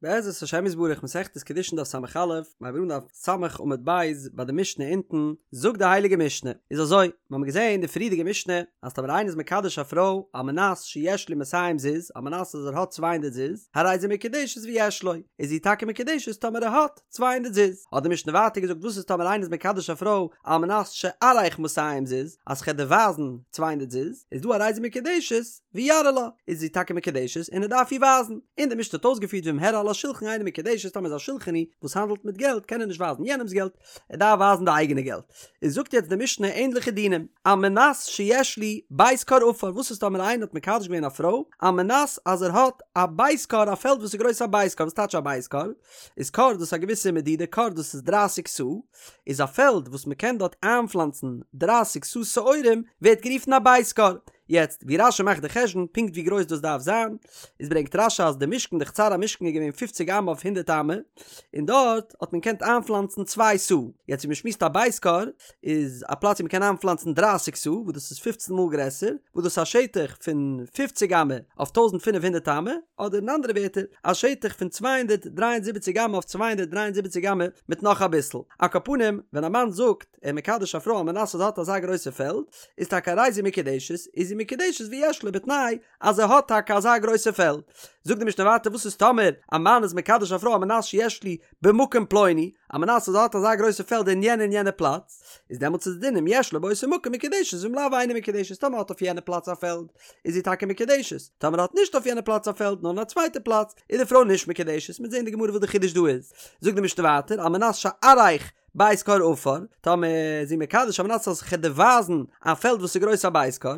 בעזרת השם יתברך מסכת קידושין דף ס"א, מיר הייבן אן דף ס' עמוד ב' ביי די משנה אונטן, זאגט די הייליגע משנה, איז אזוי, מיר האבן געזען אין די פריערדיגע משנה, אז טאמער איינער איז מקדש א פרוי על מנת שיש לי מאתים זוז, על מנת אז ער האט צוויי הונדערט זוז, הרי זו מקודשת ויש לו, איז זי טאקע מקודשת טאמער ער האט צוויי הונדערט זוז. האט די משנה ווייטער געזאגט וואס איז טאמער איינער איז מקדש א פרוי על מנת שאראך מאתים זוז, אז כ'עט דיר ווייזן צוויי הונדערט זוז, איז דא הרי זו מקודשת, ויראה לה, איז זי טאקע מקודשת און ער דארף איר ווייזן. און די משנה האט אויסגעפירט ואם הראה על השולחן אינה מקודשת טאמער איז א שולחני וואס האנדלט מיט געלט קען ער נישט ווייזן יענעמס געלט, ער דארף ווייזן די אייגענע געלט. איז זאגט יעצט די משנה ענדליכע דינים, על מנת שיש לי בית כור עפר, וואס איז טאמער איינער האט מקדש געווען א פרוי על מנת אז ער האט א בית כור א פעלד וואס איז גרויס א בית כור, וואס טייטש א בית כור? איז כור דאס א געוויסע מדידה כור דאס איז דרייסיג סאה, איז א פעלד וואס מען קען דארט איינפלאנצן דרייסיג סאה שעורים ווערט גערופן א בית כור. יעצט ווי רש"י מאכט די חשבון פונקט ווי גרויס דאס דארף זיין, איז ברענגט רש"י אז די משכן די חצר המשכן איז געווען פופציג אמה אויף הונדערט אמה, און דארט האט מען געקענט איינפלאנצן צוויי סאה, יעצט ווי מען שמועסט א בית כור איז א פלאץ ווי מען קען איינפלאנצן דרייסיג סאה וואס דאס איז פופצן מאל גרעסער, וואס דאס איז א שטח פון פופציג אמה אויף טויזנט פינף הונדערט אמה, אדער אין אנדערע ווערטער א שטח פון 273 אמה אויף 273 אמה מיט נאך אביסל. על כל פנים, ווען א מאן זאגט ער מקדש א פרוי על מנת אז ער האט אזא גרויסע פעלד, איז טאקע הרי זו מקודשת, איז זי מקודשת ויש לו בתנאי אז ער האט טאקע אזא גרויסע פעלד. זאגט די משנה ווייטער וואס איז טאמער א מאן איז מקדש א פרוי על מנת שיש לי במקום פלוני, על מנת אז ער האט אזא גרויסע פעלד אין יענע און יענע פלאץ, איז דעמאלטס איז די דין אם יש לו באותו מקום מקודשת ואם לאו אינה מקודשת טאמער האט אויף יענע פלאץ א פעלד איז זי טאקע מקודשת, טאמער האט נישט אויף יענע פלאץ א פעלד נאר אין א צווייטע פלאץ איז די פרוי נישט מקודשת, מ'וועט זען אין די גמרא וואס די חידוש דא איז. זאגט די משנה ווייטער על מנת שאראך בית כור עפר, טאמער איז זי מקדש על מנת אז כ'עט דיר ווייזן א פעלד וואס איז גרויס א בית כור,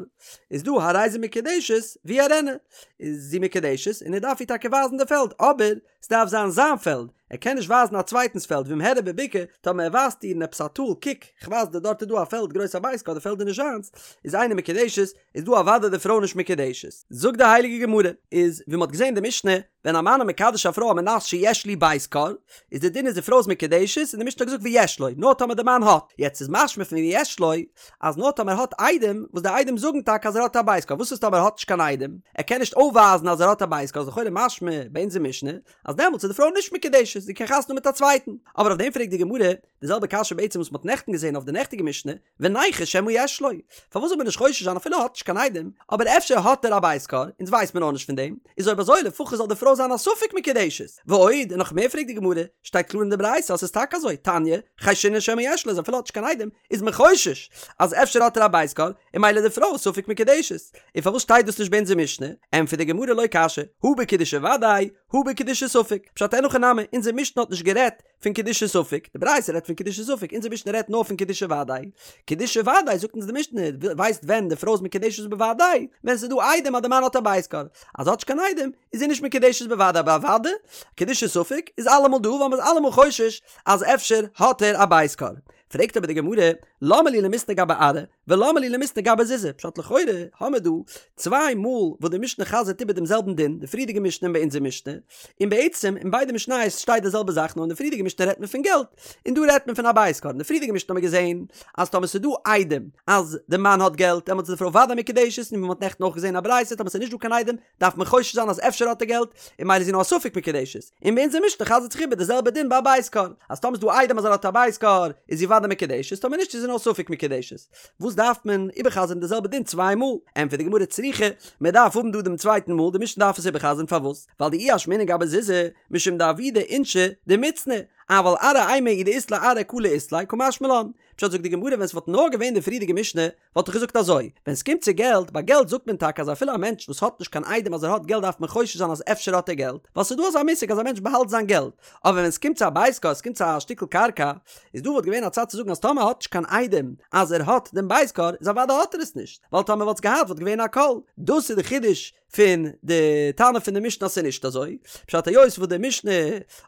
איז דא הרי זו מקודשת ויראנה, איז זי מקודשת און ער דארף איר טאקע ווייזן די פעלד, אבער ס'דארף זיין זיין פעלד, ער קען נישט ווייזן א צווייטנס פעלד, ואם הראה בבקעה, טאמער ער ווייזט איר אין עפעס א טאל, קוק, כ'ווייז דיר דארט איז דא א פעלד גרויס א בית כור, די פעלד איז נישט זיינס, איז אינה מקודשת, איז דא אוודאי די פרוי נישט מקודשת. זאגט די הייליגע גמרא, איז ווי מ'האט געזען אין די משנה, ווען א מאן איז מקדש א פרוי על מנת שיש לי בית כור, איז די דין איז די פרוי איז מקודשת, און די משנה האט געזאגט ויש לו, נאר טאמער די מאן האט, יעצט איז משמע פון ויש לו, אז נאר טאמער האט עדים, וואס די עדים זאגן טאקע אז ער האט א בית כור, וואס איז טאמער ער האט נישט קיין עדים, ער קען נישט אויפווייזן אז ער האט א בית כור, איז לכאורה משמע ביי אונזער משנה, אז דעמאלטס איז די פרוי נישט מקודשת, זי קען חתונה האבן מיט א צווייטן. אבער אויף דעם פרעגט די גמרא, די זעלבע קשיא בעצם וואס מ'האט נעכטן געזען אויף די נעכטיגע משנה, וניחוש שמא יש לו, פארוואס זאל מען נישט חושש זיין אפילו ער האט נישט קיין עדים, אבער אפשר האט ער א בית כור, אונז ווייסט מען נאכנישט פון דעם, איז אויב אזוי לפחות זאל די פרוי זיין א ספק מקודשת. ועוד, און נאך מער פרעגט די גמרא, שטייט קלאר אין די ברייתא אז ס'איז טאקע אזוי, תניא, חיישינן שמא יש לו, אז אפילו ער האט נישט קיין עדים, איז מען חושש אז אפשר האט ער א בית כור, און ממילא די פרוי איז ספק מקודשת. און פארוואס שטייט דאס נישט ביי אונזער משנה? ענטפערט די גמרא לא קשיא, הא בקידושי ודאי, הא בקידושי ספק. פשט אין הכי נמי, אונזער משנה האט נישט גערעדט פון קידושי ספק, די ברייתא רעדט פון קידושי ספק, אונזער משנה רעדט נאר פון קידושי ודאי. קידושי ודאי זאגט אונז די משנה, ווייסט ווען די פרוי איז מקודשת בוודאי? ווען ס'איז דא עדים אז די מאן האט א בית כור. אז האט נישט קיין עדים, איז זי נישט מקודשת בוודאי, אבער אוודאי, קידושי ספק איז אלעמאל דא ווייל מ'איז אלעמאל חושש אז אפשר האט ער א בית כור. פרעגט אבער די גמרא, למה לי למיתני גבי ארעא, ולמה לי למיתני גבי זוזי, פשט לכאורה האמער דא צוויי מאל וואס די משנה חזר'ט איבער דעם זעלבן דין, די פריערדיגע משנה און ביי אונזער משנה, און בעצם אין ביידע משניות שטייט די זעלבע זאך נאר אין די פריערדיגע משנה רעדט מען פון געלט, און דא רעדט מען פון א בית כור, אין די פריערדיגע משנה האמער געזען אז טאמער ס'איז דא עדים אז די מאן האט געלט דעמאלטס איז די פרוי ודאי מקודשת, און ווי מ'האט נעכטן אויך געזען א ברייתא טאמער ס'איז נישט דא קיין עדים דארף מען חושש זיין אז אפשר האט ער געלט, און ממילא איז זי נאר א ספק מקודשת. און ביי אונזער משנה חזר'ט זיך איבער די זעלבע דין ביי א בית כור, אז טאמער איז דא עדים אז ער האט א בית כור, איז זי ודאי מקודשת, טאמער נישט איז זי נאר ספק מקודשת. וואס דארף מען איבערחזר'ן די זעלבע דין צוויי מאל? ענטפערט די גמרא צריכא, מען דארף האבן דא דעם צווייטן מאל, די משנה דארף עס איבערחזר'ן פארוואס? ווייל דאי אשמעינן גבי זוזי, משום דעבידי אינשי דמצנעי, אבל ארעא אימא אי דאית ליה ארעא קלא אית ליה, קא משמע לן. פשט זאגט די גמרא ווען ס'וואלט נאר געווען די פריערדיגע משנה, וואלט איך געזאגט אזוי, ווען סקומט צו געלט, ביי געלט זאגט מען טאקע אז אפילו א מענטש וואס האט נישט קיין עדים אז ער האט געלט דארף מען חושש זיין אז אפשר האט ער געלט, ווייל ס'איז דא אזא מושג אז א מענטש באהאלט זיין געלט, אבער ווען סקומט צו א בית כור, סקומט צו א שטיקל קרקע, איז דא וואלט געווען א צד צו זאגן אז טאמער האט נישט קיין עדים אז ער האט דעם בית כור, איז אוודאי האט ער עס נישט, ווייל טאמער וואלט עס געהאט וואלט געווען א קול. דאס איז די חידוש פון די תנא פון די משנה אז ס'איז נישט אזוי, פשט היות וואס די משנה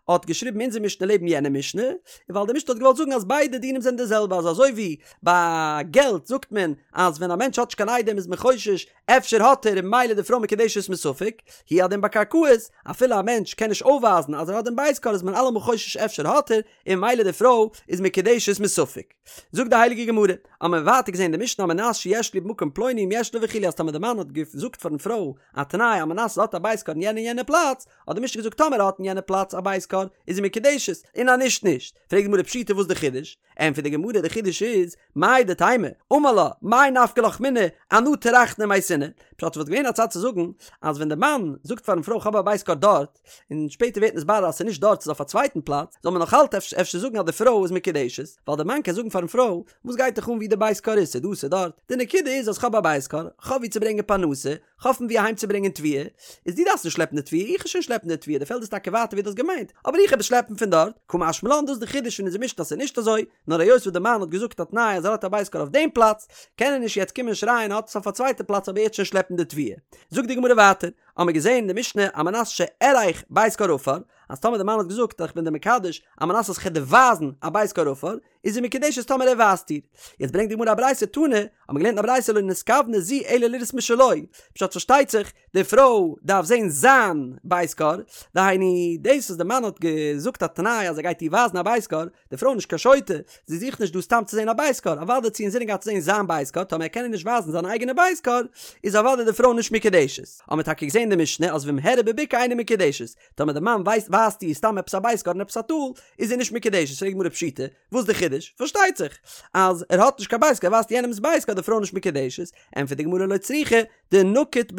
האט געשריבן אונזער משנה לעבן. יענע משנה? ווייל די משנה האט געוואלט זאגן אז ביידע דינים זענען די זעלבע אז אזוי ווי ביי געלט זאגט מען אז ווען א מענטש האט נישט קיין עדים איז מען חושש אפשר האט ער און ממילא די פרוי מקודשת מספק, הוא הדין ביי קרקעות, אפילו א מענטש קען נישט אויפווייזן אז ער האט דעם בית כור איז מען אלעמאל חושש אפשר האט ער, און ממילא די פרוי איז מקודשת מספק. זאגט די הייליגע גמרא, האבן מיר ווייטער געזען אין די משנה על מנת שיש לי במקום פלוני אם יש לו וכו' אז טאמער די מאן האט געזאגט פארן פרוי א תנאי על מנת אז ער האט א בית כור אין יענע און יענע פלאץ, האט די משנה געזאגט טאמער ער האט אין יענע פלאץ א בית כור איז זי מקודשת, און אז נישט נישט. פרעגט די גמרא פשיטא וואס די חידוש? ענטפערט די גמרא די חידוש איז, מהו דתימא, אמר לה, מאי נפקא לך מינה, אנא טרחנא ומייתינא, פשט וואלט געווען א צד צו זאגן אז ווען די מאן זאגט פארן פרוי כ'האב א בית כור דארט, און שפעטער ווערט נתברר אז ס'איז נישט דארט ס'איז אויף א צווייטן פלאץ, זאל מען נאך אלץ אפשר זאגן אז די פרוי איז מקודשת, ווייל די מאן קען זאגן פארן פרוי, וואס גייט דיך אן ווי די בית כור איז, ס'איז דא ס'איז דארט, די נקודה איז אז כ'האב א בית כור, כ'האב ווי צו ברענגען פרנסה, כ'האב פון ווי אהיים צו ברענגען תבואה, איז דו דארפסט נישט שלעפן די תבואה, איך וועל שוין שלעפן די תבואה, די פעלד איז טאקע ווייטער ווי דו האסט געמיינט, אבער איך וועל עס שלעפן פון דארט, קא משמע לן דאס איז די חידוש פון אונזער משנה אז ס'איז נישט אזוי, נאר היות וואס די מאן האט געזאגט א תנאי אז ער האט א בית כור אויף דעם פלאץ, קען ער נישט יעצט קומען שרייען ער האט עס אויף א צווייטע פלאץ אבער ער וועט שוין שלעפן די תבואה. זאגט די גמרא ווייטער, האמיר געזען אין די משנה על מנת שאראך בית כור עפר, אז טאמער די מאן האט געזאגט איך בין דיר מקדש על מנת אז כ'וועל דיר ווייזן א בית כור עפר, איז זי מקודשת טאמער ער ווייזט איר. יעצט ברענגט די גמרא א ברייתא תנא, האט מען געלערנט אין א ברייתא לא נתכוונה זו אלא לראות משלו, פשט פארשטייט זיך די פרוי דארף זען זיין בית כור, דהיינו דאס וואס די מאן האט געזאגט א תנאי אז ער גייט איר ווייזן א בית כור, די פרוי איז נישט קיין שוטה, זי זוכט נישט דא סתם צו זען א בית כור, אוודאי האט זי אינזינען געהאט צו זען זיין בית כור, טאמער ער קען איר נישט ווייזן זיין אייגענע בית כור, איז אוודאי די פרוי נישט מקודשת. האט מען טאקע געזען אין די משנה אז ואם הראה בבקעה אינה מקודשת, טאמער די מאן ווייזט ווייזט איר סתם עפעס א בית כור אין עפעס א טאל, איז זי נישט מקודשת, פרעגט די גמרא פשיטא, וואס די חידוש? פארשטייט זיך אז ער האט נישט קיין בית כור, ער ווייזט יענעמס בית כור, די פרוי נישט מקודשת, ענטפערט די גמרא לא צריכא דנקיט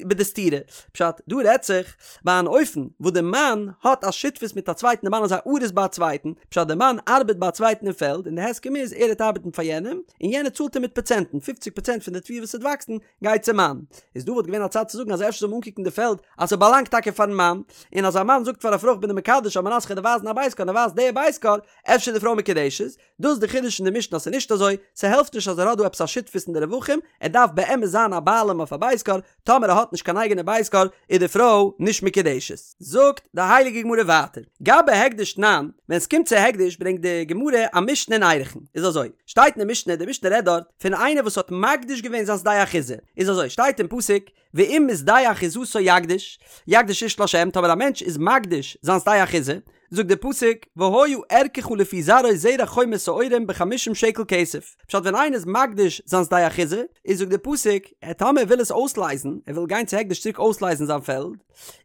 בדסתורא, פשט, דא רעדט זיך ביי אן אופן וואס די מאן האט א שותפות מיט א צווייטן, די מאן איז א אריס ביי א צווייטן, פשט די מאן ארבעט ביי א צווייטן אין פעלד און די הסכם איז ער וועט ארבעטן פאר יענעם און יענער צאלט אים מיט פראצענטן, פופציג פראצענט פון די תבואה וואס וועט וואקסן גייט צום מאן. איז דא וואלט געווען א צד צו זאגן אז אפשר זאל מען אנקוקן די פעלד אז ס'באלאנגט טאקע פארן מאן, און אז א מאן זאגט פאר א פרוי כ'בין דיר מקדש על מנת כ'וועל דיר ווייזן א בית כור און ער ווייזט די בית כור, אפשר איז די פרוי מקודשת. דאס איז די חידוש אין די משנה אז ס'איז נישט אזוי, ס'העלפט נישט אז ער האט דא עפעס א שותפות אין די רווחים, ער דארף באמת זיין א בעלים אויף א בית כור, טאמער ער האט נישט קיין אייגענע בית כור איז די פרוי נישט מקודשת. זאגט די הייליגע גמרא ווייטער, גבי הקדש תנן, ווען ס'קומט צו הקדש ברענגט די גמרא א משנה אין ערכין, איז אזוי, שטייט אין די משנה, די משנה רעדט דארט פון איינער וואס האט מקדיש געווען זיין שדה אחוזה, איז אזוי, שטייט אין פסוק, ואם משדה אחוזתו יקדיש, יקדיש איש לה', טאמער א מענטש איז מקדיש זיין שדה אחוזה, זאגט דער פסוק, והיה ערכך לפי זרעו זרע חומר שעורים בחמישים שקל כסף, פשט ווען איינער איז מקדיש זיין שדה אחוזה, איז זאגט דער פסוק, טאמער ער וויל עס אויסלייזן, ער וויל גיין צו הקדש צוריק אויסלייזן זיין פעלד,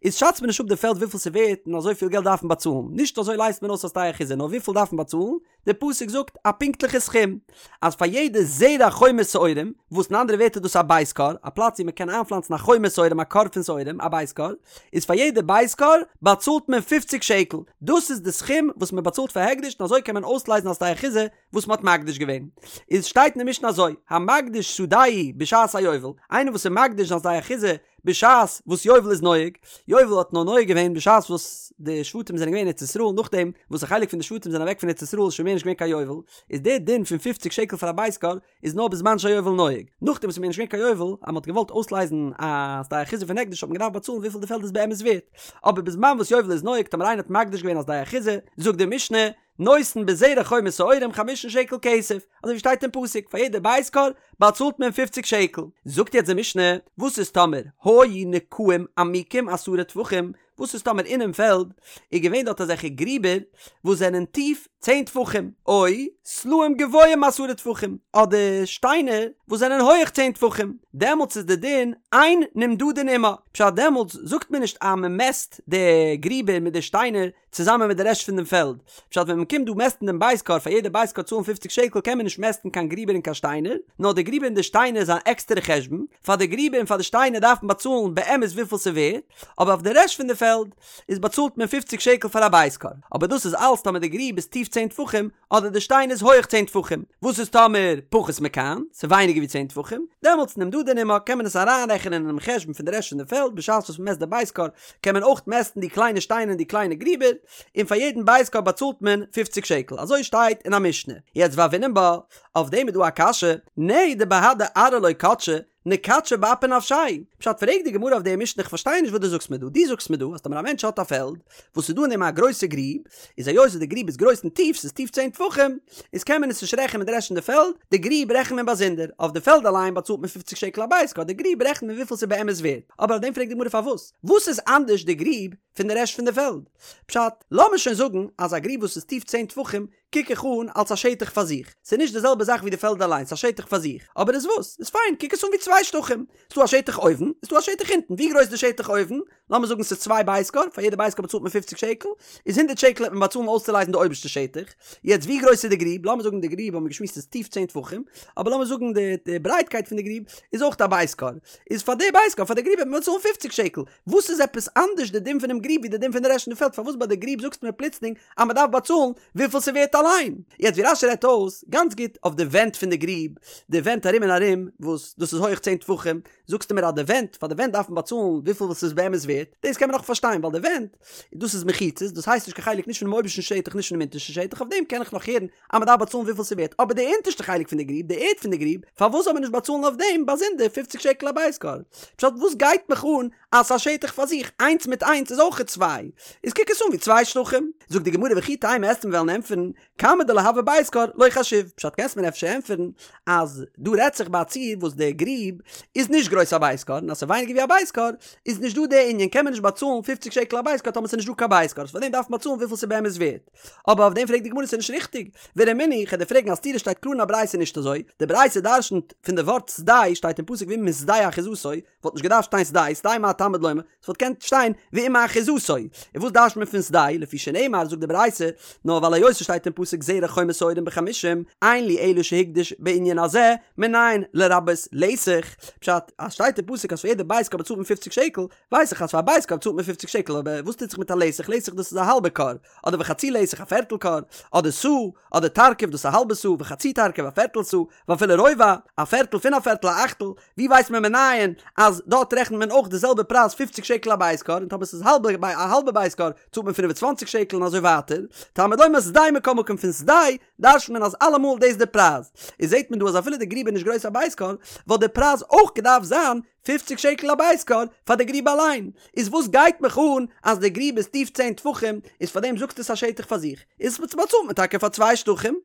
איז שאצט מען נישט אפ די פעלד וויפיל ס'ווערט און אזוי פיל געלט דארף מען באצאלן, נישט אזוי לייזט מען אויס א שדה אחוזה, נאר וויפיל דארף מען באצאלן, דער פסוק זאגט א פונקטליכע סכום, אז פאר יעדע זרע חומר שעורים, וואס אין אנדערע ווערטער דאס איז א בית כור, א פלאץ ווי מען קען איינפלאנצן א חומר שעורים א כור פון שעורים, א בית כור, איז פאר יעדע בית כור באצאלט מען פופציג שקל, דאס איז די סכום וואס מען באצאלט פאר הקדש און אזוי קען מען אויסלייזן א שדה אחוזה וואס מען האט מקדיש געווען. איז שטייט אין די משנה אזוי, המקדיש שדהו בשעת היובל, איינער וואס איז מקדיש זיין שדה אחוזה בשעת וואס יובל איז נוהג, יובל האט נאר נוהג געווען בשעת וואס די שבטים זענען געווען אין ארץ ישראל, נאכדעם וואס א חלק פון די שבטים זענען אוועק פון ארץ ישראל איז שוין מער נישט געווען קיין יובל, איז דער דין פון פופציג שקל פאר א בית כור איז נאר בזמן שהיובל נוהג, נאכדעם וואס איז מער נישט געווען קיין יובל, אז מען האט געוואלט אויסלייזן א שדה אחוזה פון הקדש האט מען געדארפט באצאלן וויפיל די פעלד איז באמת ווערט, אבער בזמן וואס יובל איז נוהג טאמער איינער האט מקדיש געווען א שדה אחוזה, זאגט די משנה, נותן בזרע חומר שעורים חמישים שקל כסף, אזוי ווי שטייט אין פסוק, פאר יעדע בית כור באצאלט מען פופציג שקל. זאגט יעצט די משנה, וואס איז טאמער היו נקעים עמוקים עשרה טפחים, וואס איז טאמער אינעם פעלד איז געווען דארט אזעלכע גריבער וואס זענען טיף צען טפחים, או סלעים גבוהים עשרה טפחים, אדער שטיינער וואס זענען הויעך צען טפחים, דעמאלטס איז די דין אין נמדדין עמה, פשט דעמאלטס זאגט מען נישט אז מען מעסט די גריבער מיט די שטיינער צוזאמען מיט די רעשט פון דעם פעלד. פשט ווען מען קומט דא מעסטן דעם בית כור פאר יעדע בית כור צאלן פופציג שקל קען מען נישט מעסטן קיין גריבער און קיין שטיינער, נאר די גריבער און די שטיינער איז אן עקסטערע חשבון, פאר די גריבער און פאר די שטיינער דארף מען באצאלן באמת וויפיל ס'ווערט, אבער אויף די רעשט פון די פעלד איז באצאלט מען פופציג שקל פאר א בית כור. אבער דאס איז אלס טאמער די גריב איז טיף צען טפחים אדער די שטיין איז הויעך צען טפחים. וואס איז טאמער פחות מכאן, ס'איז ווייניגער ווי צען טפחים, דעמאלטס נמדדין עמה קען מען עס אריינרעכענען אינעם חשבון פון די רעשט פון די פעלד בשעת וואס מ'מעסט די בית כור קען מען אויך מעסטן די קליינע שטיינער און די קליינע גריבער, און פאר יעדן בית כור באצאלט מען פופציג שקל, אזוי שטייט אין א משנה. יעצט והוינן בה, אויף דעם איז דא א קשיא, נהי דבהדי ארעא לא קדשי, נקדשיה באפי נפשיה. פשט פרעגט די גמרא אויף די משנה איך פארשטיי נישט וואס דו זאגסט מיר דא, דו זאגסט מיר דא אז טאמער א מענטש האט א פעלד וואס איז דא אין דעם א גרויסע גריב, איז היות וואס די גריב איז גרויס און טיף, ס'איז טיף צען טפחים, איז קען מען עס נישט רעכענען מיט די רעשט פון די פעלד, די גריב רעכנט מען באזונדער, אויף די פעלד אליין באצאלט מען פופציג שקל א בית כור, די גריב רעכנט מען וויפיל ס'איז באמת ווערט, אבער אויף דעם פרעגט די גמרא פארוואס? וואס איז אנדערש די גריב פון די רעשט פון די פעלד? פשט, לאמיר שוין זאגן אז א גריב וואס איז טיף צען טפחים קוק איך אן אלס א שטח פאר זיך, ס'איז נישט די זעלבע זאך ווי די פעלד אליין, ס'איז א שטח פאר זיך, אבער איז וואס? איז פיין, קוק עס אן ווי צוויי שטחים, ס'דא א שטח אויבן, איז דא א שטח אונטן, ווי גרויס איז די שטח אויבן? לאמיר זאגן ס'איז צוויי בית כור, פאר יעדע בית כור באצאלט מען פופציג שקל, איז הונדערט שקל וועט מען באצאלן אויסצולייזן די אויבערשטע שטח, יעצט ווי גרויס איז די גריב? לאמיר זאגן די גריב האבן מיר געשמועסט איז טיף צען טפחים, אבער לאמיר זאגן די ברייטקייט פון די גריב איז אויך א בית כור, איז פאר די בית כור פאר די גריב וועט מען באצאלן פופציג שקל, וואס איז עפעס אנדערש די דין פונעם גריב ווי די דין פון די רעשט פון די פעלד? פארוואס ביי די גריב זאגסטו מיר פלוצלינג אז מען דארף באצאלן וויפיל ס'ווערט אליין? יעצט ווי רש"י רעדט אויס גאנץ גוט אויף די ווענט פון די גריב, די ווענט ארום און ארום וואס דאס איז הויעך צען טפחים, זאגסטו מיר אז די ווענט, פאר די ווענט דארף מען באצאלן וויפיל וואס ס'איז באמת ווערט, דאס קען מען נאך פארשטיין ווייל די ווענט, דאס איז מחיצות, דאס הייסט נישט קיין חלק נישט פונעם אויבערשטן שטח נישט פונעם אונטערשטן שטח, אויף דעם קען איך נאך הערן אז מען דארף באצאלן וויפיל ס'ווערט, אבער די אונטערשטע חלק פון די גריב, די ערד פון די גריב, פארוואס זאל מען נישט באצאלן אויף דעם באזונדער פופציג שקל א בית כור? פשט וואס גייט מיך אן אז ס'איז א שטח פאר זיך, איינס מיט איינס איז אויכעט צוויי, איז קוק עס אן ווי צוויי שטחים. זאגט די גמרא וכי תימא וועסטו מיר וועלן ענטפערן, כמה דלא הוי בית כור לא חשיב, פשט קענסט מיר אפשר ענטפערן אז דא רעדט זיך ביי א ציור וואס די גריב איז נישט גרויס א בית כור און אז ס'איז ווייניגער ווי א בית כור איז נישט דא די ענין קען מען נישט באצאלן פופציג שקל א בית כור טאמער ס'איז נישט דא קיין בית כור פאר דעם דארף מען באצאלן וויפיל ס'איז באמת ווערט אבער אויף דעם פרעגט די גמרא ס'איז נישט ריכטיג ורמינהי כ'על דיר פרעגן א סתירה שטייט קלאר אין א ברייתא נישט אזוי די ברייתא דרשנ'ט פון די ווארט שדה שטייט אין פסוק ואם משדה אחוזתו וואלט נישט געדארפט שטיין שדה, שדה מה תלמוד לומר, ס'וואלט געקענט שטיין ואם מאחוזתו. און וואס דרש'ט מען פון שדה, לפי שנאמר זאגט די ברייתא, נאר ווייל היות ס'שטייט אין פסוק זרע חומר שעורים בחמישים, אין לי אלא שהקדיש בענין הזה, מנין לרבות לתך, פשט, אז שטייט אין פסוק אז פאר יעדע בית כור באצאלט מען פופציג שקל, ווייס איך אז פאר א בית כור באצאלט מען פופציג שקל, אבער וואס טוט זיך מיט א לתך, לתך דאס איז א האלבע כור, אדער וחצי לתך א פערטל כור, אדער סאה, אדער תרקב דאס איז א האלבע סאה, וחצי תרקב א פערטל סאה, ואפילו רובע, א פערטל פון א פערטל א אכטל, ווי ווייסט מען מנין אז דארט רעכנט מען אויך די זעלבע פרייז פופציג שקל א בית כור, און טאמער ס'איז האלבע א האלבע בית כור צאלט מען פינף און צוואנציג שקל און אזוי ווייטער, תלמוד לומר שדה מכל מקום פון שדה דרש'נט מען אז אלעמאל דאס די פרייז, איז זעט מען דא אז אפילו די גריב איז נישט גרויס א בית כור, וואלט די פרייז אויך געדארפט זיין פופציג שקל א בית כור פאר די גריב אליין, איז וואס גייט מיך אן אז די גריב איז טיף צען טפחים, איז פאר דעם זאגסטו עס א שטח פאר זיך, איז באצאלט מען טאקע פאר צוויי שטחים.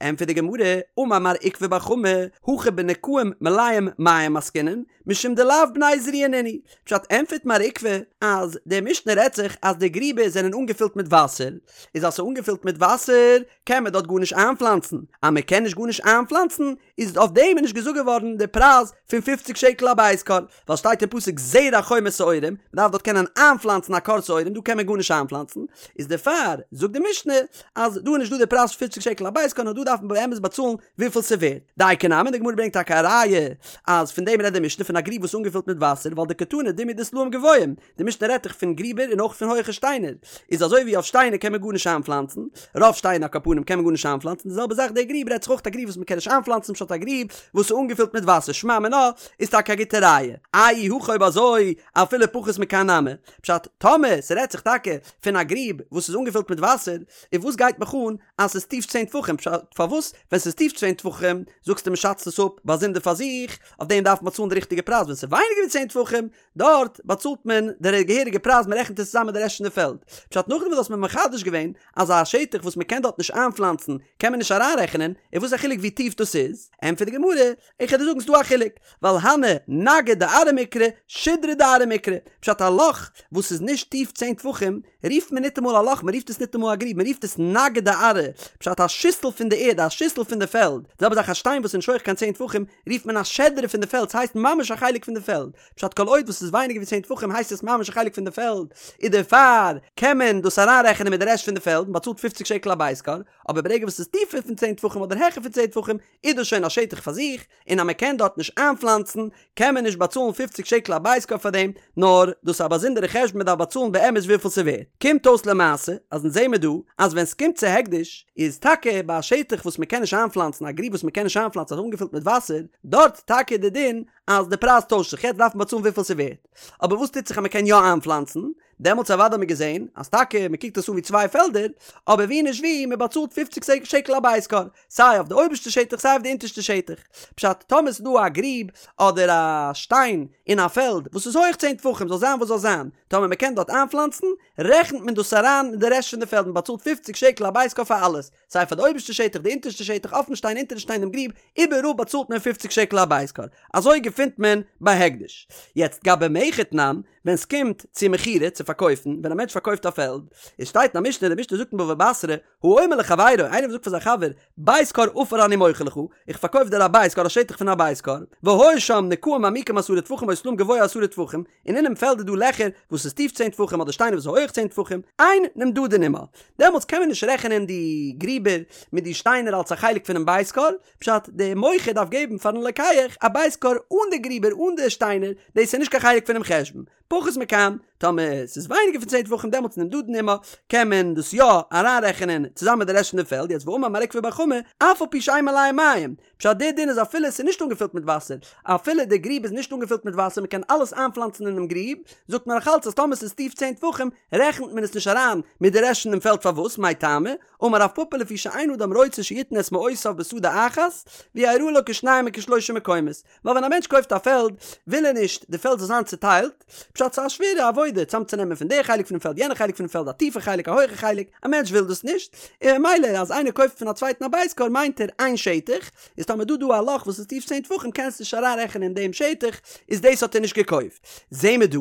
ענטפערט די גמרא, אמר מר עוקבא בר חמא, הכא בנקעים מלאים מים עסקינן, משום דלאו בני זריעה נינהו. פשט, ענטפערט מר עוקבא אז די משנה רעדט זיך אז די גריבער זענען אנגעפילט מיט וואסער, איז אז ס'איז אנגעפילט מיט וואסער קען מען דארט גארנישט איינפלאנצן, אז מען קען נישט גארנישט איינפלאנצן איז אויף דעם איז נישט געזאגט געווארן די פרייז פון פופציג שקל א בית כור, ווייל שטייט אין פסוק זרע חומר שעורים, מען דארף דארט קענען איינפלאנצן א כור שעורים, דא קען מען גארנישט איינפלאנצן, איז דערפאר זאגט די משנה אז דא איז נישט דא די פרייז פון פופציג שקל א בית כור נאר דא דארף מען באמת באצאלן וויפיל ס'ווערט. דייקא נמי, די גמרא ברענגט טאקע א ראיה אז פון דעם רעדט די משנה פון א גריב וואס איז אנגעפילט מיט וואסער ווייל דקתני דומיא דסלעים גבוהים, די משנה רעדט דאך פון גריבער און אויך פון הויכע שטיינער, איז אזוי ווי אויף שטיינער קען מען גארנישט איינפלאנצן, רוב שטיינער על כל פנים קען מען גארנישט איינפלאנצן, די זעלבע זאך די גריב רעדט זיך אויך א גריב וואס מען קען נישט איינפלאנצן פשט א גריב וואס איז אנגעפילט מיט וואסער שמע מינה איז טאקע א גוטע ראיה. אי הכי אויב אזוי אפילו פחות מכאן נמי, פשט טאמער ס'רעדט זיך טאקע פון א גריב וואס איז אנגעפילט מיט וואסער, און וואס גייט מיך אן אז ס'איז טיף צען טפחים, פשט פארוואס ווען ס'איז טיף צען טפחים זאגסטו מ'שאצט עס אפ באזונדער פאר זיך, אויף דעם דארף מען באצאלן די ריכטיגע פרייז ווען ס'איז ווייניגער ווי צען טפחים דארט באצאלט מען די געהעריגע פרייז מען רעכנט עס צוזאם מיט די רעשט פון די פעלד. פשט נאכדעם וואס דו האסט מיר מחדש געווען אז א שטח וואס מען קען דארט נישט איינפלאנצן קען מען נישט אריינרעכענען, איז וואס א חילוק ווי טיף דאס איז? ענטפערט די גמרא, איך וועל דיר זאגן ס'דא א חילוק, ווייל הני נגהי דארעא מיקרי, שידרא דארעא מיקרי, פשט א לאך וואס איז נישט טיף צען טפחים רופט מען ניטאמאל א לאך מען רופט עס ניטאמאל א גריב מען רופט עס נגהי דארעא, פשט א שיסל פון די ערד א שיסל פון די פעלד, די זעלבע זאך א שטיין וואס איז נישט הויך קיין צען טפחים רופט מען א שדרה פון די פעלד ס'הייסט ממש א חלק פון די פעלד, פשט כל עוד וואס איז ווייניגער ווי צען טפחים הייסט עס ממש א חלק פון די פעלד, איז דערפאר קען מען דאס אריינרעכענען מיט די רעשט פון די פעלד, מען באצאלט פופציג שקל א בית כור, אבער ברגע וואס ס'איז טיפער פון צען טפחים אדער העכער פון צען טפחים איז דאס שוין א שטח פאר זיך, און אז מען קען דארט נישט איינפלאנצן קען מען נישט באצאלן פופציג שקל א בית כור פאר דעם, נאר דאס איז א באזונדערע חשבון מען דארף באצאלן באמת וויפיל ס'ווערט. קומט אויס למעשה אז אונז זעמער דא אז ווען ס'קומט צו הקדש איז טאקע ביי א שטח וואס מען קען נישט איינפלאנצן א גריב וואס מען קען נישט איינפלאנצן אז אנגעפילט מיט וואסער, דארט טאקע איז די דין אז די פרייז טוישט זיך יעצט דארף מען באצאלן וויפיל ס'ווערט. אבער וואס טוט זיך אז מען קען יא איינפלאנצן? דעמאלטס אוודאי האט מען געזען אז טאקע מען קוקט עס אן ווי צוויי פעלדער, אבער ווי נישט ווי, מען באצאלט פופציג שקל א בית כור, סיי אויף די אויבערשטע שטח סיי אויף די אונטערשטע שטח. פשט, טאמער ס'איז דא א גריב אדער א שטיין אין א פעלד וואס איז הויעך צען טפחים זאל זיין וואס זאל זיין, טאמער מען קען דארט איינפלאנצן, רעכנט מען דאס אריין אין די רעשט פון די פעלד, מען באצאלט פופציג שקל א בית כור פאר אלעס, סיי פאר די אויבערשטע שטח, די אונטערשטע שטח, אויפן שטיין, אונטערן שטיין, דעם גריב, איבעראל באצאלט מען פופציג שקל א בית כור. אזוי געפינט מען ביי הקדש. יעצט גבי מכר תנן, ווען ס'קומט צו מכירה, צו פארקויפן, ווען א מענטש פארקויפט א פעלד, עס שטייט אין א משנה, די משנה זאגט אין בבא בתרא, האומר לחבירו, איינער וואס זאגט פאר זיין חבר, בית כור עפר אני מוכר לך, איך פארקויף דיר א בית כור א שטח פון א בית כור, והיו שם נקעים עמוקים עשרה טפחים או סלעים גבוה עשרה טפחים, און אינעם פעלד איז דא לעכער וואס איז טיף צען טפחים אדער שטיינער וואס איז הויעך צען טפחים, אין נמדדין עמה. דעמאלטס קען מען נישט רעכענען די גריבער מיט די שטיינער אלס א חלק פונעם בית כור, פשט, דער מוכר דארף געבן פארן לוקח א בית כור אן די גריבער אן די שטיינער, דאס איז נישט קיין חלק פונעם חשבון. פחות מכאן, טאמער ס'איז ווייניגער פון צען טפחים דעמאלטס נמדדין עמה, קען מען דאס יא אריינרעכענען צוזאמען מיט די רעשט פון די פעלד, יעצט ואמר מר עוקבא בר חמא, אף על פי שאין מלאין מים, פשט די דין איז אפילו ס'איז נישט אנגעפילט מיט וואסער, אפילו די גריב איז נישט אנגעפילט מיט וואסער מ'קען אלעס איינפלאנצן אינעם גריב, זאגט מען נאכאלץ אז טאמער ס'איז טיף צען טפחים רעכנט מען עס נישט אריין מיט די רעשט פון דעם פעלד פארוואס מאי טעמא, אמר רב פפא לפי שאין אדם רוצה שיתן את מעותיו בשדה אחת ויראה לו כשניים וכשלושה מקומות, ווייל ווען א מענטש קויפט א פעלד וויל ער נישט די פעלד זאל זיין צוטיילט, פשט ס'איז א שווערע עבודה צאמצונעמען פון די חלק פונעם פעלד יענע חלק פונעם פעלד א טיפע חלק א הויכע חלק, א מענטש וויל דאס נישט, און ממילא אז איינער קויפט פון א צווייטן א בית כור מיינט ער איין שטח, איז טאמער דא דא א לאך וואס איז טיף צען טפחים קענסט נישט אריינרעכענען דעם שטח, איז דאס האט ער נישט געקויפט. זעהן מיר דא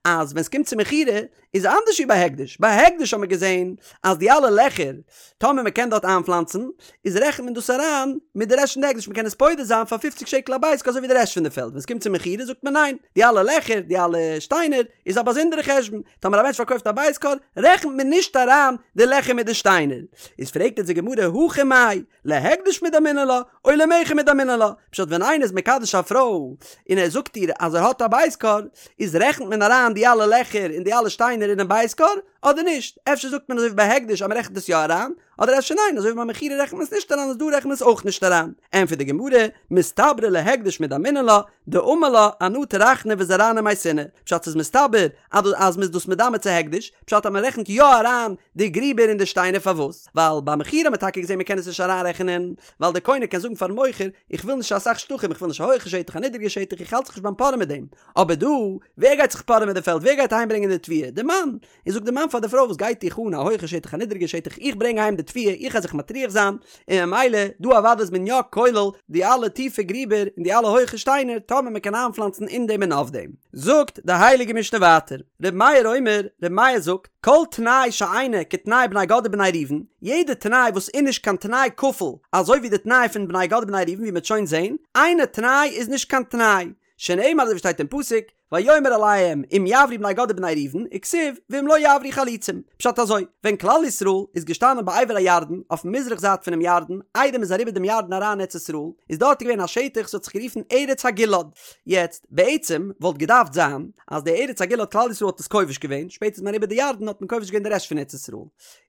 אז ווען ס'קומט צו מכירה איז אנדערש ווי ביי הקדש, ביי הקדש האט מען געזען אז די אלע לעכער, טאמער מען קען דארט איינפלאנצן, איז רעכנט מען דאס אריין מיט די רעשט פון די הקדש, מען קען עס פודה זיין פאר פופציג שקל א בית כור אזוי ווי די רעשט פון די פעלד, ווען עס קומט צו מכירה זאגט מען ניין, די אלע לעכער, די אלע שטיינער, איז א באזונדערע חשבון, טאמער א מענטש פארקויפט א בית כור, רעכנט מען נישט אריין די לעכער מיט די שטיינער. איז פרעגט אונז די גמרא, הכא מאי, להקדש מדמינן לה, או למכר מדמינן לה, פשט ווען איינער איז מקדש א פרוי און ער זאגט איר אז ער האט א בית כור, איז רעכנט מען אריין די אלע לעכער און די אלע שטיינער אינעם בית כור, אדער נישט? אפשר זאגט מען אזוי ווי ביי הקדש אז מען רעכנט עס יא אריין, אדער אפשר ניין אזוי ווי ביי מכירה רעכנט מען עס נישט אריין איז דא רעכנט מען עס אויך נישט אריין. ענטפערט די גמרא, מסתברא להקדש מדמינן לה, דאמר לה אנא טרחנא וזרענא ומייתינא, פשט ס'איז מסתבר אז אז מ'איז דאס מדמה צו הקדש, פשט אז מ'רעכנט יא אריין די גריבער און די שטיינער פארוואס? ווייל ביי מכירה האט מען טאקע געזען מ'קען עס נישט אריינרעכענען, ווייל דער קונה קען זאגן פארן מוכר איך וויל נישט אסאך שטחים איך וויל נישט א הויכע שטח א נידריגע שטח איך האלט זיך נישט ביים פארען מיט דעם, אבער דא ווער גייט זיך פארען מיט די פעלד ווער גייט אהיימברענגען די תבואה? די מאן! און זאגט די מאן פאר די פרוי וואס גייט דיך אן א הויכע שטח א נידריגע שטח איך ברענג אהיים די תבואה איך גיי זיך מטריח זיין און ממילא דא אוודאי איז מען יא כולל די אלע טיפע גריבער און די אלע הויכע שטיינער טאמער מען קען איינפלאנצן אין דעם און אויף דעם. זאגט די הייליגע משנה ווייטער, ר' מאיר אומר, ר' מאיר זאגט, כל תנאי שאינו כתנאי בני גד ובני ראובן, יעדע תנאי וואס איז נישט קיין תנאי כפול אזוי ווי די תנאי פון בני גד ובני ראובן ווי מען וועט שוין זען, אינו תנאי איז נישט קיין תנאי, שנאמר אזוי ווי שטייט אין פסוק, ויאמר אליהם אם יעברו בני גד ובני ראובן, וכתיב ואם לא יעברו חלוצים. פשט אזוי, ווען כלל ישראל איז געשטאנען בעבר הירדן, אויפן מזרח זייט פונעם ירדן, איידער מ'איז אריבער דעם ירדן אריין אין ארץ ישראל, איז דארט געווען א שטח וואס האט זיך גערופן ארץ הגלעד. יעצט, בעצם וואלט געדארפט זיין אז די ארץ הגלעד כלל ישראל האט עס כובש געווען, שפעטער איז מען אריבער די ירדן האט מען כובש געווען די רעשט פון ארץ ישראל.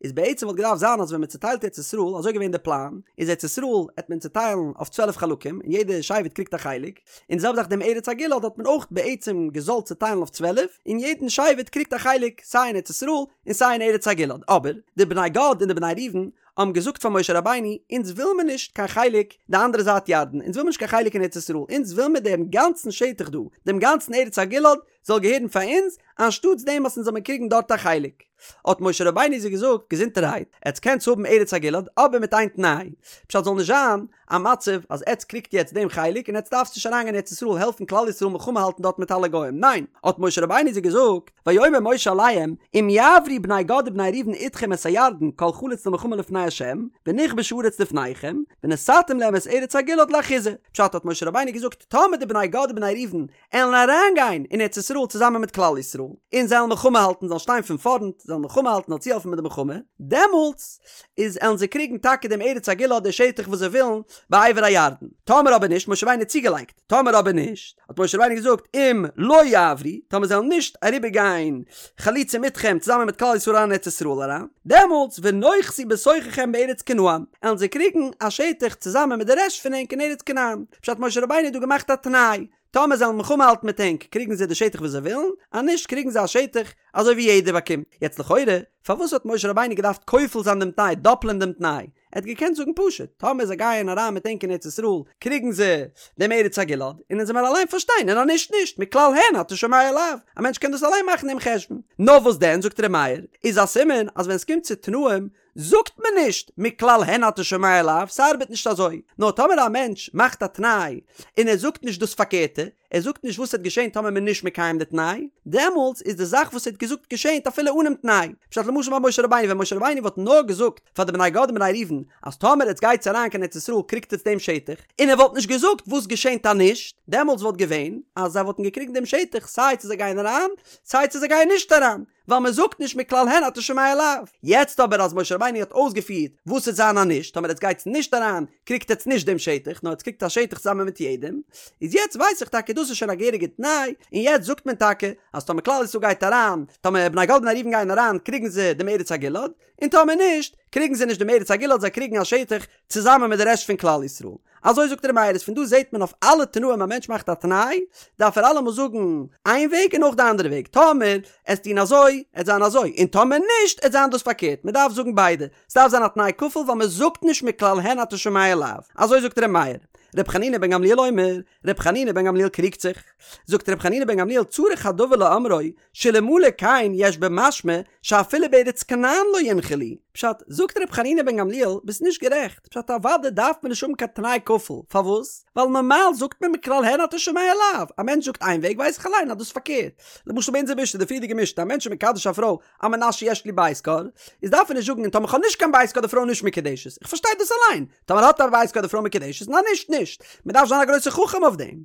איז בעצם וואלט געדארפט זיין אז ווען מען צוטיילט ארץ ישראל, אזוי געווען די פלאן, איז ארץ ישראל העט מען צוטיילן אויף 12 חלקים, און יעדע שבט קריגט א חלק, און די זעלבע זאך דעם ארץ הגלעד האט מען אויך בעצם געזאלט צוטיילן אויף 12, און יעדן שבט קריגט א חלק סיי אין ארץ ישראל און סיי אין ארץ הגלעד, אבער די בני גד און די בני ראובן האבן געזאגט פאר משה רבינו, אונז וויל מיר נישט קיין חלק די אנדערע זייט ירדן, אונז וויל מיר נישט קיין חלק אין ארץ ישראל, אונז וויל מיר דעם גאנצן שטח דא, דעם גאנצן ארץ הגלעד זאל געהערן פאר אונז, אנשטאטס דעם וואס אונז זאל מיר קריגן דארט א חלק. האט משה רבינו זיי געזאגט, געזונטערהייט, עטס קענטס האבן ארץ הגלעד, אבער מיט איין תנאי, פשט זאל נישט זיין א מצב אז עטס קריגט יעצט דעם חלק און עטס דארפטס נישט אריינגיין ארץ ישראל העלפן כלל ישראל מלחמה האלטן דארט מיט אלע גוים, ניין, האט משה רבינו זיי געזאגט, ויאמר משה אליהם, אם יעברו בני גד ובני ראובן אתכם את הירדן כל חלוץ למלחמה לפני ה', ונכבשה הארץ לפניכם, ונתתם להם את ארץ הגלעד לאחוזה. פשט האט משה רבינו געזאגט, טאמער די בני גד ובני ראובן עלן אריינגיין אין ארץ ישראל צוזאמען מיט כלל ישראל, און זיי עלן מלחמה האלטן, זאלן שטיין פון פארנט, זיי עלן מלחמה האלטן, זאלן צוהעלפן מיט די מלחמה, דעמאלטס איז עלן זיי קריגן טאקע דעם ארץ הגלעד די שטח וואס זיי ווילן בעבר הירדן. טאמער אבער נישט, משה רבינו האט צוגעלייגט, טאמער אבער נישט, האט משה רבינו געזאגט, אם לא יעברו, טאמער זיי עלן נישט אריבער גיין חלוצים אתכם צוזאמען מיט כלל ישראל אריין אין ארץ ישראל אריין, דעמאלטס ונאחזו בתוככם בארץ כנען, עלן זיי קריגן א שטח צוזאמען מיט די רעשט פון ענק אין ארץ כנען. פשט משה רבינו האט דא געמאכט א תנאי. טאמער זיי וועלן מלחמה האלטן מיט ענק קריגן זיי די שטח וואס זיי ווילן, אז נישט קריגן זיי א שטח אזוי ווי יעדער באקומט. יעצט לכאורה, פארוואס האט משה רבינו געדארפט כופל זיין דעם תנאי, דאפלען דעם תנאי? ער האט געקענט זאגן פשוט, טאמער זיי גייען אריין מיט ענק אין ארץ ישראל, קריגן זיי דעם ארץ הגלעד, און אונז וועמיר אליין פארשטיין, און אז נישט נישט, מכלל הן אתה שומע לאו, א מענטש קען דאס אליין מאכן דעם חשבון. נאר וואס דען, זאגט ר' מאיר, איז א סימן אז ווען עס קומט צו תנאים, זאגט מען נישט מכלל הן אתה שומע לאו, ס'ארבעט נישט אזוי. נאר טאמער א מענטש מאכט א תנאי, און ער זאגט נישט דאס פארקערטע, ער זאגט נישט וואס וועט געשען טאמער מ'איז נישט מקיים די תנאי, דעמאלטס איז די זאך וואס ער האט געזאגט געשענט אפילו אנעם תנאי. פשט למשל ביי משה רבינו, ווען משה רבינו וואלט נאר געזאגט פאר די בני גד און בני ראובן אז טאמער עטס גייטס אריין קיין ארץ ישראל קריגט עטס דעם שטח, און ער וואלט נישט געזאגט וואס געשענט אז נישט, דעמאלטס וואלט געווען אז זיי וואלטן געקריגן דעם שטח סיי צו זיי גייען אריין סיי צו זיי גייען נישט אריין. ווייל מען זאגט נישט מכלל הן אתה שומע לאו. יעצט אבער אז משה רבינו האט אויסגעפירט וואס עט זיין אז נישט, טאמער עטס גייטס נישט אריין קריגט עטס נישט דעם שטח, נאר עטס קריגט א שטח צוזאמען מיט יעדעם, איז יעצט ווייס איך טאקע דאס איז שוין א געהעריגע תנאי, און יעצט זאגט מען טאקע אז טאמער כלל ישראל גייט אריין, טאמער בני גד ובני ראובן גייען אריין קריגן זיי דעם ארץ הגלעד, און טאמער נישט, קריגן זיי נישט דעם ארץ הגלעד זיי קריגן א שטח צוזאמען מיט די רעשט פון כלל ישראל. אזוי זאגט ר' מאיר איז פון דא זעט מען אויף אלע תנאים א מענטש מאכט א תנאי דארף ער אלעמאל זאגן איין וועג און אויך די אנדערע וועג טאמער עסט טון אזוי עט זיין אזוי און טאמער נישט עט זיין דאס פארקערט מען דארף זאגן ביידע ס'דארף זיין א תנאי כפול ווייל מען זאגט נישט מכלל הן אתה שומע לאו אזוי זאגט ר' מאיר. ר' חנינא בן גמליאל אומר, ר' חנינא בן גמליאל קריגט זיך, זאגט ר' חנינא בן גמליאל צריך הדבר לאומרו שאלמלא כן יש במשמע שאפילו בארץ כנען לא ינחלו. פשט, זאגט ר' חנינא בן גמליאל, ביסט נישט גערעכט, פשט אוודאי דארף מען נישט האבן קיין תנאי כפול, פארוואס? ווייל נארמאל זאגט מען מכלל הן אתה שומע לאו, א מענטש זאגט איין וועג ווייס איך אליין אז דאס איז פארקערט, למשל ביי אונזער משנה, די פריערדיגע משנה, א מענטש איז מקדש א פרוי על מנת שיש לי בית כור, איז דארף ער נישט זאגן און טאמער כ'האב נישט קיין בית כור די פרוי נישט מקודשת, איך פארשטיי דאס אליין, טאמער האט ער א בית כור די פרוי מקודשת, און אז נישט נישט, מען דארף זיין א גרויסער חכם אויף דעם.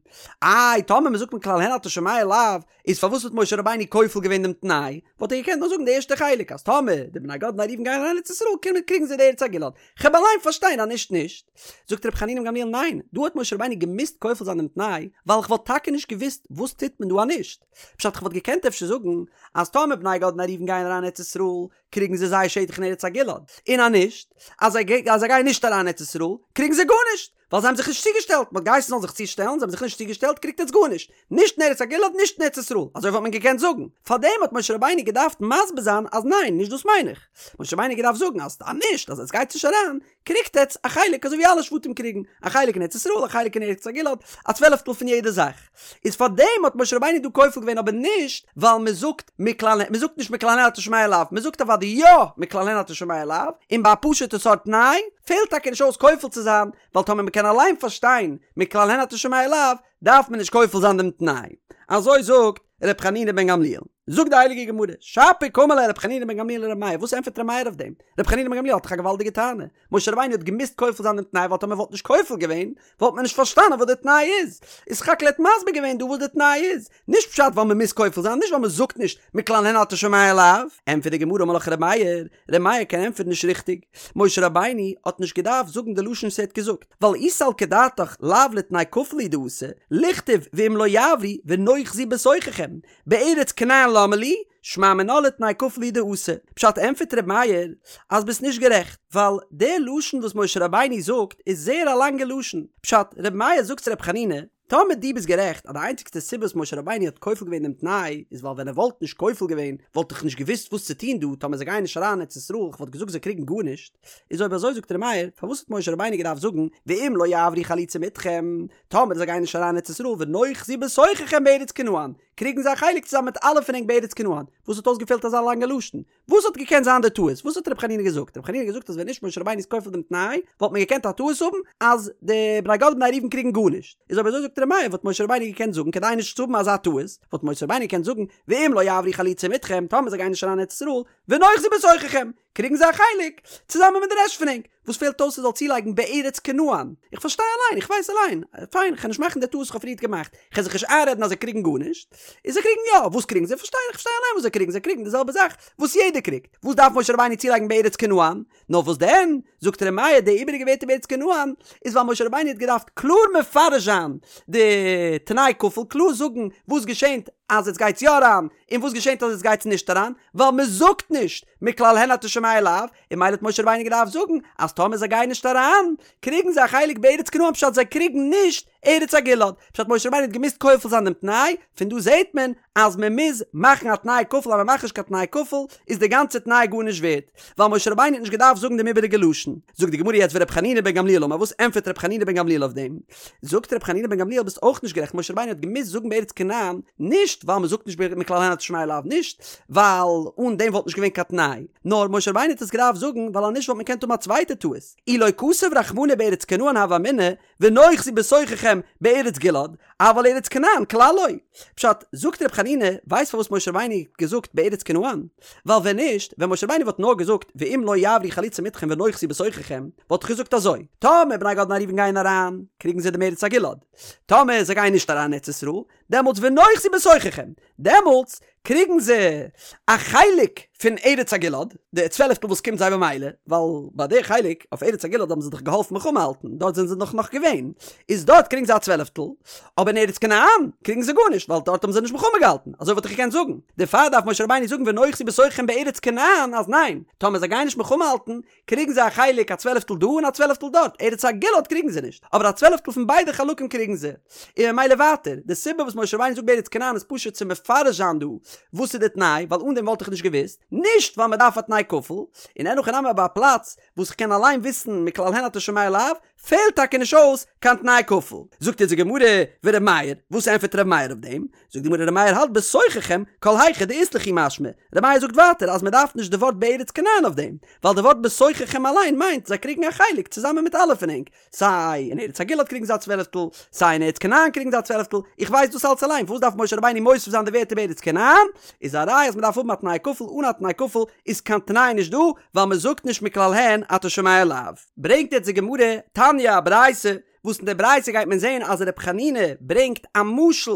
איי טאמער מען זאגט מכלל הן אתה שומע לאו, איז פארוואס האט משה רבינו כופל געווען דעם תנאי? וואלט ער געקענט נאר זאגן די ערשטע חלק אז טאמער די בני גד ובני ראובן גייען אריין ארץ ישראל קומען קריגן זיי די ארץ הגלעד. כ'העב אליין פארשטיין אז נישט נישט. זאגט רבי חנינא בן גמליאל ניין, דא האט משה רבינו געמוזט כופל זיין דעם תנאי, ווייל כ'וואלט טאקע נישט געוואוסט וואס טוט מען דא אז נישט. פשט כ'וואלט געקענט אפשר זאגן אז טאמער בני גד ובני ראובן גייען אריין ארץ ישראל קריגן זיי זייער שטח אין ארץ הגלעד, און אז נישט, אז זיי גייען נישט אריין ארץ ישראל קריגן זיי גארנישט. ווייל זיי האבן זיך נישט צוגעשטעלט, מען האט געהייסן זאלן זיך צושטעלן, זיי האבן זיך נישט צוגעשטעלט, קריגט עטס גארנישט, נישט אין ארץ הגלעד נישט אין ארץ ישראל, אזוי וואלט מען געקענט זאגן, פארדעם האט משה רבינו געדארפט מסביר זיין אז ניין, נישט דאס מיין איך, משה רבינו האט געדארפט זאגן אז אז נישט, אז עטס גייטס נישט אריין, קריגט עטס א חלק אזוי ווי אלע שבטים קריגן, א חלק אין ארץ ישראל, א חלק אין ארץ הגלעד, א צוועלעפטל פון יעדע זאך. איז פארדעם האט משה רבינו דא כופל געווען אבער נישט ווייל מען זאגט מכלל מען זאגט נישט מכלל הן אתה שומע לאו מען זאגט אוודאי יא מכלל הן אתה שומע לאו און ביי א פשוטע סארט תנאי פעלט טאקע נישט אויס כופל צו זיין ווייל טאמער מען קען אליין פארשטיין מכלל הן אתה שומע לאו דארף מען נישט כופל זיין דעם תנאי אזוי זאגט ר' חנינא בן גמליאל. זאגט די הייליגע גמרא, שפיר קאמר ליה ר' חנינא בן גמליאל לר' מאיר, וואס ענטפערט ר' מאיר אויף דעם? ר' חנינא בן גמליאל האט דאך א געוואלדיגע טענה, משה רבינו האט געמוזט כופל זיין דעם תנאי ווייל טאמער וואלט נישט כופל געווען וואלט מען נישט פארשטאנען וואס די תנאי איז, איז סך הכל ער האט מסביר געווען דא וואס די תנאי איז, נישט פשט ווייל מען מוז כופל זיין, נישט ווייל מען זאגט נישט מכלל הן אתה שומע לאו. ענטפערט די גמרא אמר לך ר' מאיר, ר' מאיר קען ענטפערן נישט ריכטיג, משה רבינו האט נישט געדארפט זאגן די לשון וואס ער האט געזאגט, ווייל אי סלקא דעתך לאו לתנאי כפול הוא דאתא, ליכתוב ואם לא יעברו ונאחזו בתוככם, בארץ כנען למה לי, שמע מינה לתנאי כפול הוא דאתא. פשט ענטפערט ר' מאיר אז ביסט נישט גערעכט, ווייל די לשון וואס משה רבינו זאגט איז זייער א לאנגע לשון. פשט, ר' מאיר זאגט צו ר' חנינא, טאמער דו ביסט גערעכט אז די איינציגסטע סיבה וואס משה רבינו האט כופל געווען דעם תנאי איז ווייל ווען ער וואלט נישט כופל געווען וואלט איך נישט געוואוסט וואס צו טון דא טאמער זיי גייען נישט אריין ארץ ישראל איך וואלט געזאגט זיי קריגן גארנישט, איז אויב אזוי זאגט ר' מאיר פארוואס האט משה רבינו געדארפט זאגן ואם לא יעברו חלוצים אתכם טאמער זיי גייען נישט אריין ארץ ישראל ונאחזו בתוככם בארץ כנען קריגן זיי א חלק צוזאמען מיט אלע פון ענק בארץ כנען, וואס האט אויסגעפעלט אזא לאנגע לשון? וואס האט געקענט זיין די טעות? וואס האט רבי חנינא געזאגט? רבי חנינא האט געזאגט אז ווען נישט משה רבינו איז כופל דעם תנאי, וואלט מען געקענט א טעות האבן אז די בני גד ובני ראובן קריגן גארנישט. איז אויב אזוי זאגט ר' מאיר וואלט משה רבינו געקענט זאגן כדי נישט צו האבן אזא טעות, וואלט משה רבינו געקענט זאגן ואם לא יעברו חלוצים אתכם, טאמער זיי גייען נישט אריין אין ארץ ישראל, ונאחזו בתוככם, קריגן זיי א חלק, צוזאמען מיט די רעשט פון ענק. וואס פעלט אויס ער זאל צולייגן בארץ כנען? איך פארשטיי אליין, איך ווייס אליין. פיין, כ'על נישט מאכן די טעות וואס כ'האב פריערט געמאכט. כ'על זיך נישט איינרעדן אז זיי קריגן גארנישט. און זיי קריגן יא. וואס קריגן זיי? פארשטיי, איך פארשטיי אליין וואס זיי קריגן. זיי קריגן די זעלבע זאך וואס יעדער קריגט. וואס דארף משה רבינו צולייגן בארץ כנען? נאר וואס דען? זאגט ר' מאיר, די איבעריגע ווערטער בארץ כנען, איז ווייל משה רבינו האט געדארפט קלאר מפרש זיין די תנאי כפול, קלאר זאגן וואס געשענט אז עטס גייטס יא אריין, און וואס געשענט אז עטס גייטס נישט אריין, ווייל מ'זאגט נישט מכלל הן אתה שומע לאו, און ממילא האט משה רבינו געדארפט זאגן אז טאמער זיי גייען נישט אריין, קריגן זיי א חלק בארץ כנען פשט זיי קריגן נישט. ארץ הגלעד, פשט משה רבינו האט געמוזט כופל זיין דעם תנאי, פון דא זעהט מען אז מען מוז מאכן א תנאי כפול אז מען מאכט נישט קיין תנאי כפול איז די גאנצע תנאי גארנישט ווערט, ווייל משה רבינו האט נישט געדארפט זאגן דעם איבעריגע לשון. זאגט די גמרא יעצט ור' חנינא בן גמליאל אמר וואס ענטפערט ר' חנינא בן גמליאל אויף דעם? זאגט ר' חנינא בן גמליאל ביסט אויך נישט גערעכט משה רבינו האט געמוזט זאגן בארץ כנען נישט ווייל מען זאגט נישט מכלל הן אתה שומע לאו נישט ווייל אן דעם וואלט נישט געווען קיין תנאי נאר משה רבינו האט עס געדארפט זאגן ווייל אז נישט וואלט מען געקענט האבן א צווייטע טעות אי לא כתב רחמנא בארץ כנען הוה אמינא ונאחזו בתוככם בארץ גלעד, אבל ארץ כנען כלל לא. פשט, זאגט ר' חנינא, ווייסט פארוואס משה רבינו האט געזאגט בארץ כנען? ווייל ווען נישט, ווען משה רבינו וואלט נאר געזאגט ואם לא יעברו חלוצים אתכם ונאחזו בתוככם, וואלט איך געזאגט אזוי, טאמער בני גד ובני ראובן גייען אריין, קריגן זיי דעם ארץ הגלעד. טאמער זיי גייען נישט אריין אין ארץ ישראל, דעמאלטס ונאחזו בתוככם, דעמאלטס קריגן זיי א חלק פון ארץ הגלעד, די צוועלפטל וואס קומט זיי במילא, ווייל ביי די חלק אויף ארץ הגלעד האבן זיי דאך געהאלפן מלחמה האלטן, דארט זענען זיי דאך נאך געווען, איז דארט קריגן זיי א צוועלפטל, אבער אין ארץ כנען קריגן זיי גארנישט, ווייל דארט האבן זיי נישט מלחמה געהאלטן, אזוי וואלט איך געקענט זאגן, דערפאר דארף משה רבינו זאגן ונאחזו בתוככם בארץ כנען אז ניין, טאמער זיי גייען נישט מלחמה האלטן, קריגן זיי א חלק א צוועלפטל דא און א צוועלפטל דארט, ארץ הגלעד קריגן זיי נישט, אבער א צוועלפטל פון ביידע חלקים קריגן זיי. און ממילא ווייטער, די סיבה וואס משה רבינו זאגט בארץ כנען איז פשוט צו מפרש זיין דא וואס איז די תנאי, ווייל אן דעם וואלט איך נישט געוואוסט, נישט ווייל מען דארף א תנאי כפול, און אין הכי נמי ביי א פלאץ וואס כ'קען אליין וויסן מכלל הן אתה שומע לאו, פעלט טאקע נישט אויס קיין תנאי כפול. זאגט אונז די גמרא, ור' מאיר, וואס ענטפערט ר' מאיר אויף דעם? זאגט די גמרא ר' מאיר האלט בתוככם כל היכא דאית לכו משמע, ר' מאיר זאגט ווייטער אז מען דארף נישט די ווארט בארץ כנען אויף דעם, ווייל די ווארט בתוככם אליין מיינט זיי קריגן א חלק צוזאמען מיט אלע פון ענק, סיי אין ארץ הגלעד קריגן זיי א צוועלפטל, סיי אין ארץ כנען קריגן זיי א צוועלפטל, איך ווייס דאס אלץ אליין, פארוואס דארף משה רבינו מוסיף זיין די ווערטער בארץ כנען? איז א ראיה אז מען דארף האבן א תנאי כפול, אן א תנאי כפול איז קיין תנאי נישט דא, ווייל מען זאגט נישט מכלל הן אתה שומע לאו. ברענגט יעצט די גמרא, תניא, א ברייתא, וואס אין די ברייתא גייט מען זעהן אז ר' חנינא ברענגט א משל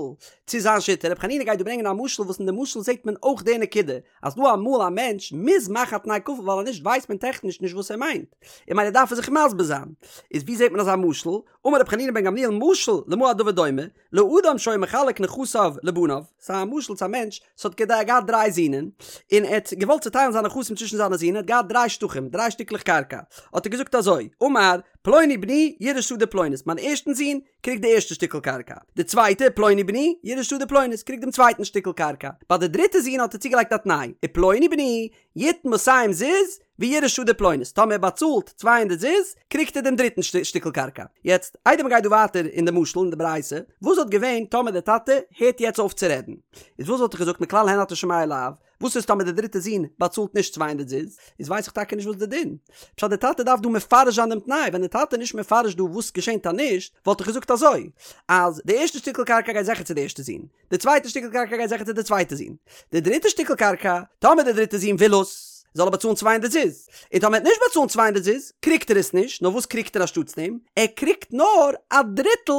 צו זיין שיטה, ר' חנינא גייט דא ברענגען א משל וואס אין די משל זעהט מען אויך די נקודה, אז דא אמאל א מענטש מוז מאכן א תנאי כפול ווייל אז נישט ווייסט מען טעכניש נישט וואס ער מיינט, און ממילא דארף ער זיך מסביר זיין. איז ווי זעהט מען אזא משל? אמר ר' חנינא בן גמליאל משל למה הדבר דומה, לאדם שהיה מחלק נכסיו לבניו, ס'איז א משל צו א מענטש וואס האט געהאט דריי זינען, און ער האט געוואלט צוטיילן זיינע נכסים צווישן זיינע זין, ער האט געהאט דריי שטחים, דריי שטיקלעך קרקע, האט ער געזאגט אזוי, אמר, פלוני בני יירש שדה פלונית, מיין ערשטן זון קריגט די ערשטע שטיקל קרקע, די צווייטע, פלוני בני יירש שדה פלונית, קריגט דעם צווייטן שטיקל קרקע, ביי די דריטע זון האט ער צוגעלייגט א תנאי, ופלוני בני יתן מאתים זוז ויירש שדה פלונית, טאמער ער באצאלט 200 זוז, קריגט ער דעם דריטן שטיקל קרקע. יעצט, איידער מ'גייט דא ווייטער אין די משל אין די ברייתא, וואס וואלט געווען טאמער דער טאטע הערט יעצט אויף צו רעדן? איז וואס וואלט איך געזאגט מכלל הן אתה שומע לאו? וואס איז טאמער דער דריטער זון באצאלט נישט 200 זוז? איז ווייס איך טאקע נישט וואס די דין. פשט דער טאטע דארף דא מפרש זיין דעם תנאי, ווען דער טאטע איז נישט מפרש דא וואס געשענט אז נישט, וואלט איך געזאגט אזוי, אז די ערשטע שטיקל קרקע גייט זיכער צו די ערשטע זון, די צווייטע שטיקל קרקע גייט זיכער צו די צווייטע זון. די דריטע שטיקל קרקע, טאמער די דריטע זון וויל עס, זאל ער באצאלן 200 זוז. און טאמער ער וועט נישט באצאלן 200 זוז, קריגט ער עס נישט, נאר וואס קריגט ער אנשטאטס דעם? ער קריגט נאר א דריטל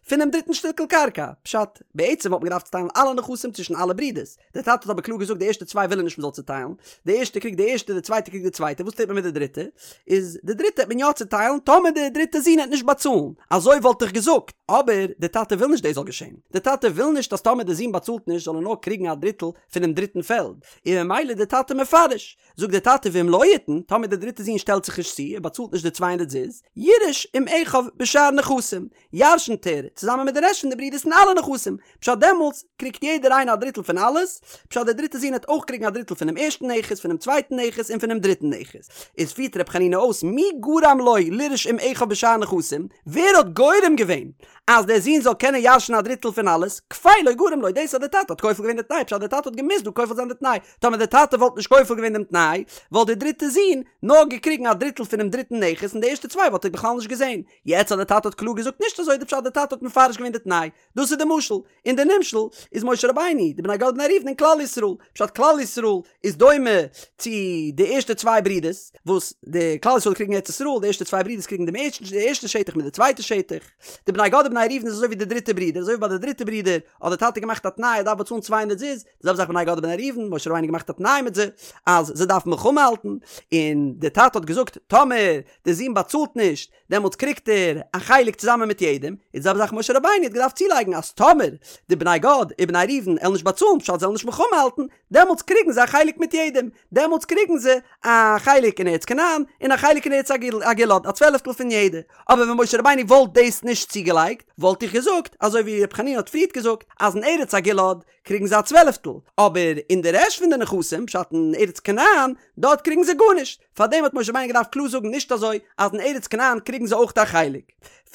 פונעם דריטן שטיקל קרקע. פשט, בעצם וואלט מען געדארפט צוטיילן אלע נכסים צווישן אלע ברידערס. דער טאטע האט אבער קלאר געזאגט די ערשטע צוויי וויל ער נישט מ'זאל צוטיילן, די ערשטע קריגט די ערשטע, די צווייטע קריגט די צווייטע, וואס טוט מען מיט די דריטע? איז די דריטע העט מען יא צוטיילן טאמער די דריטע זון העט נישט באצאלן, אזוי וואלט איך געזאגט, אבער די טאטע וויל נישט דאס זאל געשען, די טאטע וויל נישט אז טאמער די זון באצאלט נישט זאל ער נאר קריגן א דריטל פונעם דריטן פעלד, און ממילא די טאטע מפרש, זאגט די טאטע ואם לא יתן, טאמער די דריטע זון שטעלט זיך נישט צו, ער באצאלט נישט די 200 זוז, יירש עם אחיו בשאר נכסים, ירשנט ער צוזאמען מיט די רעשט פון די ברידערס אין אלע נכסים, פשט דעמאלטס קריגט יעדער איינער א דריטל פון אלעס, פשט דער דריטער זון העט אויך קריגן א דריטל פונעם ערשטן נכס, פונעם צווייטן נכס און פונעם דריטן נכס. איז פירט ר' חנינא אויס מי גרם לו לירש עם אחיו בשאר נכסים, ווער האט גורם געווען אז דער זון זאל קענען ירש'ן א דריטל פון אלעס, כפילו גרם לו, דאס אז דער טאטע האט כופל געווען די תנאי, פשט דער טאטע האט געמוזט דא כופל זיין די תנאי, טאמער דער טאטע וואלט נישט כופל געווען דעם תנאי, וואלט דער דריטער זון נאר געקריגן א דריטל פונעם דריטן נכס און די ערשטע צוויי וואלט ער בכלל נישט געזען. יעצט אז דער טאטע האט קלאר געזאגט נישט אזוי די פשט דער טאטע האט מפרש געווען די תנאי, דאס איז די משל, און די נמשל איז משה רבינו, די בני גד ובני ראובן און כלל ישראל, פשט כלל ישראל איז דומה צו די ערשטע צוויי ברידערס, וואס די כלל ישראל קריגן ארץ ישראל, די ערשטע צוויי ברידערס קריגן דעם ערשטן די ערשטע שטח מיט די צווייטע שטח, די בני גד ובני ראובן איז אזוי ווי די דריטע ברודער, אזוי ווי ביי די דריטע ברודער האט די טאטע געמאכט א תנאי ער דארף באצאלן 200 זוז, די זעלבע זאך בני גד ובני ראובן, משה רבינו געמאכט א תנאי מיט זיי אז זיי דארפן. געדארפט מלחמה האלטן, און די טאטע האט געזאגט טאמער די זון באצאלט נישט דעמאלטס קריגט ער א חלק צוזאמען מיט יעדעם, איז די זעלבע זאך משה רבינו האט געדארפט צולייגן אז טאמער די בני גד ובני ראובן עלן נישט באצאלן פשט זיי עלן נישט מלחמה האלטן, דעמאלטס קריגן זיי א חלק מיט יעדעם, דעמאלטס קריגן זיי א חלק אין ארץ כנען און א חלק אין ארץ הגלעד, א צוועלעפטל פון יעדע, אבער ווען משה רבינו וואלט דאס נישט צוגעלייגט וואלט איך געזאגט אזוי ווי ר' חנינא האט פריערט געזאגט אז אין ארץ הגלעד קריגן זיי א צוועלעפטל, אבער אין די רעשט פון די נכסים, פשט אין ארץ כנען, דארט קריגן זיי גארנישט, פארדעם האט משה רבינו געדארפט קלאר זאגן נישט אזוי אז אין ארץ כנען קריגן זיי אויך א חלק.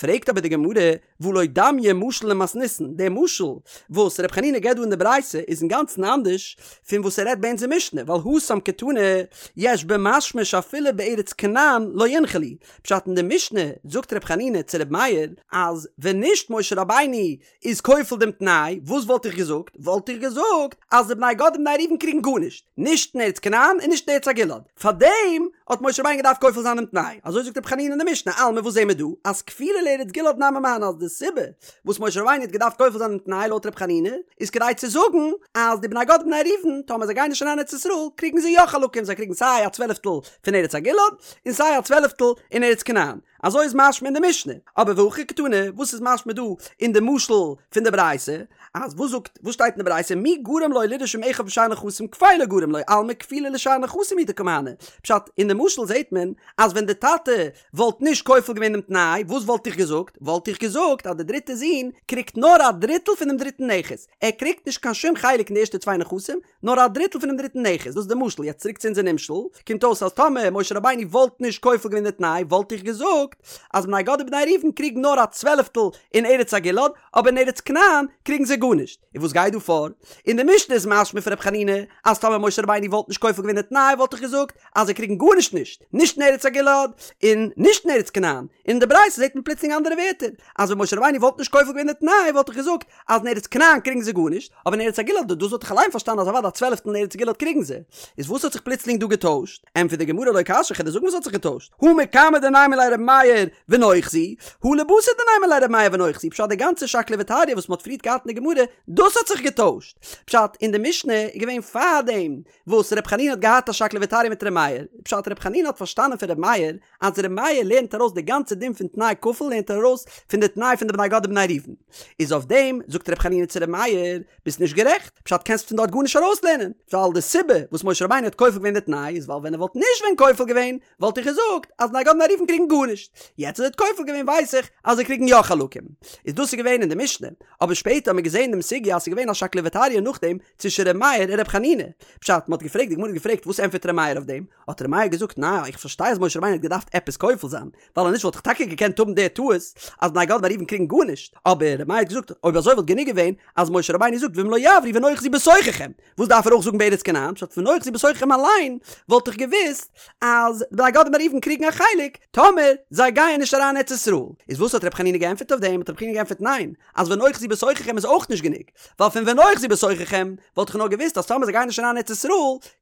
פרעגט אבער די גמרא, והא לא דמיא משל למתניתין, דער משל וואס ר' חנינא געבט דא אין די ברייתא איז אינגאנצן אנדערש פון וואס ער רעדט ביי אונזער משנה, ווייל התם קתני יש במשמע שאפילו בארץ כנען לא ינחלו, פשט אין די משנה זאגט ר' חנינא צו ר' מאיר אז ווען נישט משה רבינו איז כופל דעם תנאי, וואס וואלט איך געזאגט? וואלט איך געזאגט אז די בני גד און בני ראובן קריגן גארנישט, נישט אין ארץ כנען און נישט אין ארץ הגלעד. פארדעם האט משה רבינו געדארפט כופל זיין דעם תנאי. אזוי זאגט רבי חנינא אין די משנה, אלמא וואס זעהן מיר דא? אז כפילה לארץ גלעד נמי מהני אז די סיבה וואס משה רבינו האט געדארפט כופל זיין דעם תנאי לויט רבי חנינא איז כדי צו זאגן אז די בני גד און בני ראובן טאמער זיי גייען נישט אריין אין ארץ ישראל קריגן זיי יא חלקים, זיי קריגן סיי א צוועלעפטל פון ארץ הגלעד און סיי א צוועלעפטל אין ארץ כנען. אזוי איז משמע אין די משנה, אבער והכא קתני, וואס איז משמע דא אין די משל פון די ברייתא, אז וואס זאגט, וואס שטייט אין די ברייתא, מי גרם לו לירש עם אחיו בשאר נכסים כפילו גרם לו, אלמא כפילה לשאר נכסים הוא דקא מהני, פשט, אין די משל זעט מען אז ווען די טאטע וואלט נישט כופל געווען דעם תנאי, וואס וואלט איך געזאגט? וואלט איך געזאגט אז די דריטע זון קריגט נאר א דריטל פונעם דריטן נכס, ער קריגט נישט קיין שום חלק אין די ערשטע צוויי נכסים, נאר א דריטל פונעם דריטן נכס, דאס איז די משל, יעצט צוריק צו אונזער נמשל, קומט אויס אז טאמער משה רבינו וואלט נישט כופל געווען די תנאי וואלט איך געזאגט אז בני גד ובני ראובן קריגן נאר א צוועלעפטל אין ארץ הגלעד, אבער אין ארץ כנען קריגן זיי גארנישט. און וואס גייט דא פאר? אין די משנה איז משמע פון ר' חנינא אז טאמער משה רבינו וואלט נישט כופל געווען די תנאי וואלט איך געזאגט אז זיי קריגן גארנישט נישט, נישט אין ארץ הגלעד און נישט אין ארץ כנען, און אין די ברייתא זעט מען פלוצלינג אנדערע ווערטער, אז ווען משה רבינו וואלט נישט כופל געווען די תנאי וואלט איך געזאגט אז אין ארץ כנען קריגן זיי גארנישט, אבער אין ארץ הגלעד דאס וואלט איך אליין פארשטאנען אז אוודאי א צוועלעפטל אין ארץ גלעד קריגן זיי. איז וואס האט זיך פלוצלינג דא געטוישט? ענטפערט די גמרא לא קשיא כ'על דיר זאגן וואס האט זיך געטוישט, הא מקמי דנימא ליה רבי מאיר ונאחזו, הא לבתר דנימא ליה רבי מאיר ונאחזו, פשט די גאנצע שקלא וטריא וואס מ'האט פריערט געהאט אין די גמרא, דאס האט זיך געטוישט. פשט, אין די משנה איז געווען פארדעם וואס ר' חנינא האט געהאט א שקלא וטריא מיט ר' מאיר, פשט ר' חנינא האט פארשטאנען פון ר' מאיר אז ר' מאיר לערנט ארויס די גאנצע דין פון תנאי כפול לערנט ער ארויס פון די תנאי פון די בני גד ובני ראובן, איז אויף דעם זאגט ר' חנינא צו ר' מאיר ביסט נישט גערעכט, פשט קענסט פון דארט גארנישט ארויסלערנען, ווייל די סיבה וואס משה רבינו האט כופל געווען די תנאי איז ווייל ווען ער וואלט נישט ווען כופל געווען וואלט איך געזאגט אז בני גד ובני ראובן קריגן גארנישט, יעצט אז ער האט כופל געווען ווייס איך אז זיי קריגן יא חלקים, איז דאס איז געווען אין די משנה, אבער שפעטער האט מען געזען דעם סוגיא אז ס'איז געווען א שקלא וטריא נאכדעם צווישן ר' מאיר און ר' חנינא, פשט מ'האט געפרעגט די גמרא האט געפרעגט וואס ענטפערט ר' מאיר אויף דעם, האט ר' מאיר געזאגט ניין איך פארשטיי אז משה רבינו האט געדארפט עפעס כופל זיין, ווייל אז נישט וואלט איך טאקע געקענט האבן די טעות אז בני גד ובני ראובן קריגן גארנישט, אבער ר' מאיר האט געזאגט אויב אזוי וואלט גענוג געווען אז משה רבינו זאגט ואם לא יעברו ונאחזו בתוככם, וואס דארף ער אויך זאגן בארץ כנען, פשט ונאחזו בתוככם אליין וואלט איך געוואוסט אז בני גד ובני ראובן קריגן א חלק טאמער זיי גייען נישט אריין ארץ ישראל, איז וואס האט ר' חנינא געענטפערט אויף דעם, האט ר' חנינא געענטפערט ניין, אז ונאחזו בתוככם איז אויך נישט גענוג, ווייל פון ונאחזו בתוככם וואלט איך נאר געוואוסט אז טאמער זיי גייען נישט אריין ארץ ישראל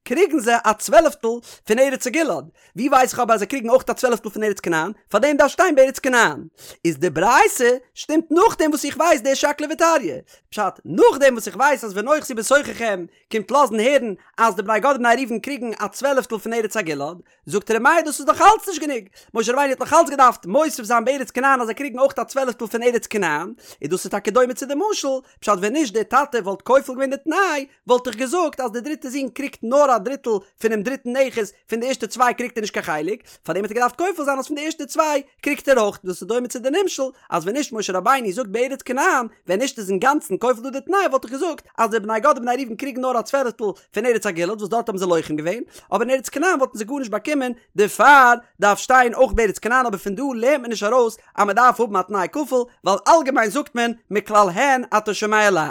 קריגן זיי א צוועלעפטל פון ארץ הגלעד, ווי ווייס איך אבער אז זיי קריגן אויך א צוועלעפטל פון ארץ כנען, פארדעם דארף שטיין בארץ כנען. איז די ברייתא שטימט נאכדעם וואס איך ווייס די שקלא וטריא. פשט, נאכדעם וואס איך ווייס אז ונאחזו בתוככם קומט לאזן הערן אז די בני גד ובני ראובן קריגן א צוועלעפטל פון ארץ הגלעד, זאגט ר' מאיר דאס איז נאך אלץ נישט גענוג, משה רבינו האט נאך אלץ געדארפט מוסיף זיין בארץ כנען אז זיי קריגן אויך א צוועלעפטל פון ארץ כנען, און דאס איז טאקע דומה צו די משל, פשט ווען נישט דער טאטע וואלט כופל געווען די תנאי, וואלט איך געזאגט אז דער דריטער זון קריגט נאר א דריטל פונעם דריטן נכס, פון די ערשטע צוויי קריגט ער נישט קיין חלק, פארדעם האט ער געדארפט כופל זיין אז פון די ערשטע צוויי קריגט ער אויך, דאס איז דומה צו די נמשל אז ווען נישט משה רבינו זאגט בארץ כנען, ווען נישט איז אינגאנצן כופל דא די תנאי וואלט איך געזאגט אז די בני גד ובני ראובן קריגן נאר א צוועלעפטל פון ארץ הגלעד וואס דארט האבן זיי לוחם געווען, אבער אין ארץ כנען וואלטן זיי גארנישט באקומען, דערפאר דארף שטיין אויך בארץ כנען אבער פון דא לערנט מען נישט ארויס אז מען דארף האבן א תנאי כפול, ווייל אלגעמיין זאגט מען מכלל הן אתה שומע לאו.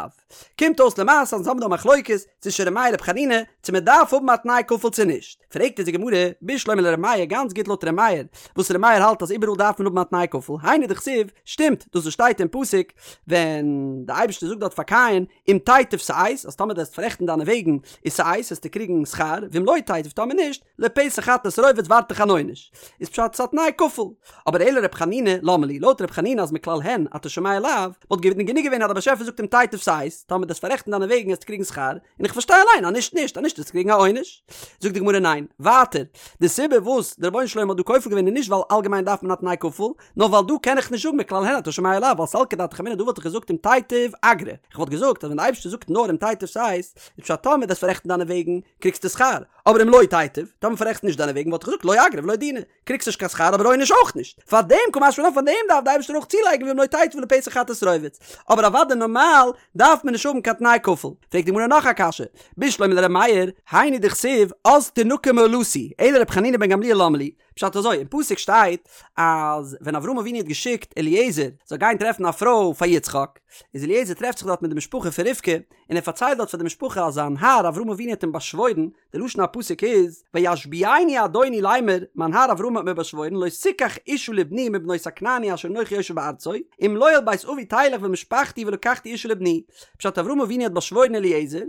קומט אויס למעשה אז אונז האבן דא א מחלוקת צווישן ר' מאיר ר' חנינא צו מען דארף האבן א תנאי כפול צו נישט, פרעגט אונז די גמרא, בשלמא לר' מאיר גאנץ גוט לויט ר' מאיר, וואס ר' מאיר האלט אז איבעראל דארף מען האבן א תנאי כפול, היינו דכתיב, שטימט דאס וואס שטייט אין פסוק ווען די אייבערשטער זאגט דארט פאר קין, אם תיטיב שאת, אז טאמער דו וועסט פאררעכטן דיינע וועגן איז שאת וועסטו קריגן שכר, ואם לא תיטיב טאמער נישט, לפתח חטאת רובץ ווארט דיך אן עונש. איז פשט ס'א תנאי כפול. אבער אלא ר' חנינא, למה לי, לויט ר' חנינא אז מכלל הן אתה שומע לאו, וואלט געווען גענוג געווען אז דער באשעפער זאגט אם תיטיב שאת. שת, טאמער דו וועסט פאררעכטן דיינע וועגן וועסטו קריגן שכר, און איך פארשטיי אליין אז נישט נישט, אז נישט וועסטו קריגן א עונש. זאגט די גמרא ניין, ווייטער, די סיבה וואס דער רבונו של עולם האט דא כופל געווען איז נישט ווייל אלגעמיין דארף מען א תנאי כפול, נאר ווייל דא קען איך נישט זאגן מכלל הן אתה שומע לאו, ווייל סלקא דעתך אמינא דא וואלט איך געזאגט אם תיטיב אגרא, איך וואלט געזאגט אז ווען די אייבערשטער זאגט נאר אם תיטיב שת, איז פשט טאמער דו וועסט פאררעכטן דיינע וועגן קריגסטו שכר, אבער אם לא תיטיב, טאמער פאררעכסט נישט דיינע וועגן וואלט איך געזאגט לא אגרא ולא דינא, קריגסט נישט קיין שכר אבער עונש אויך נישט. פאר דעם קא משמע לן פאר דעם דארף די אייבערשטער אויך צולייגן ואם לא תיטיב לפתח חטאת רובץ. אבער אוודאי נארמאל דארף מען נישט האבן קיין תנאי כפול. פרעגט די גמרא נאך א קשיא, בשלמא לר' מאיר, היינו דכתיב אז תנקה מאלתי, אלא ר' חנינא בן גמליאל למה לי, פשט אזוי, אין פסוק שטייט אז ווען אברהם אבינו האט געשיקט אליעזר זאל גיין טרעפן א פרוי פאר יצחק, איז אליעזר טרעפט זיך דארט מיט די משפחה פון רבקה, און ער פארציילט דארט פאר די משפחה אז זיין האר אברהם אבינו האט אים באשוואוירן, די לשון הפסוק איז, וישביעני אדוני לאמר, מיין האר אברהם האט מיר באשוואוירן, לא תקח אשה לבני מבנות הכנעני אשר אנכי יושב בארצו, אם לא אל בית אבי תלך ואל משפחתי ולקחתי אשה לבני. פשט אברהם אבינו האט באשוואוירן אליעזר,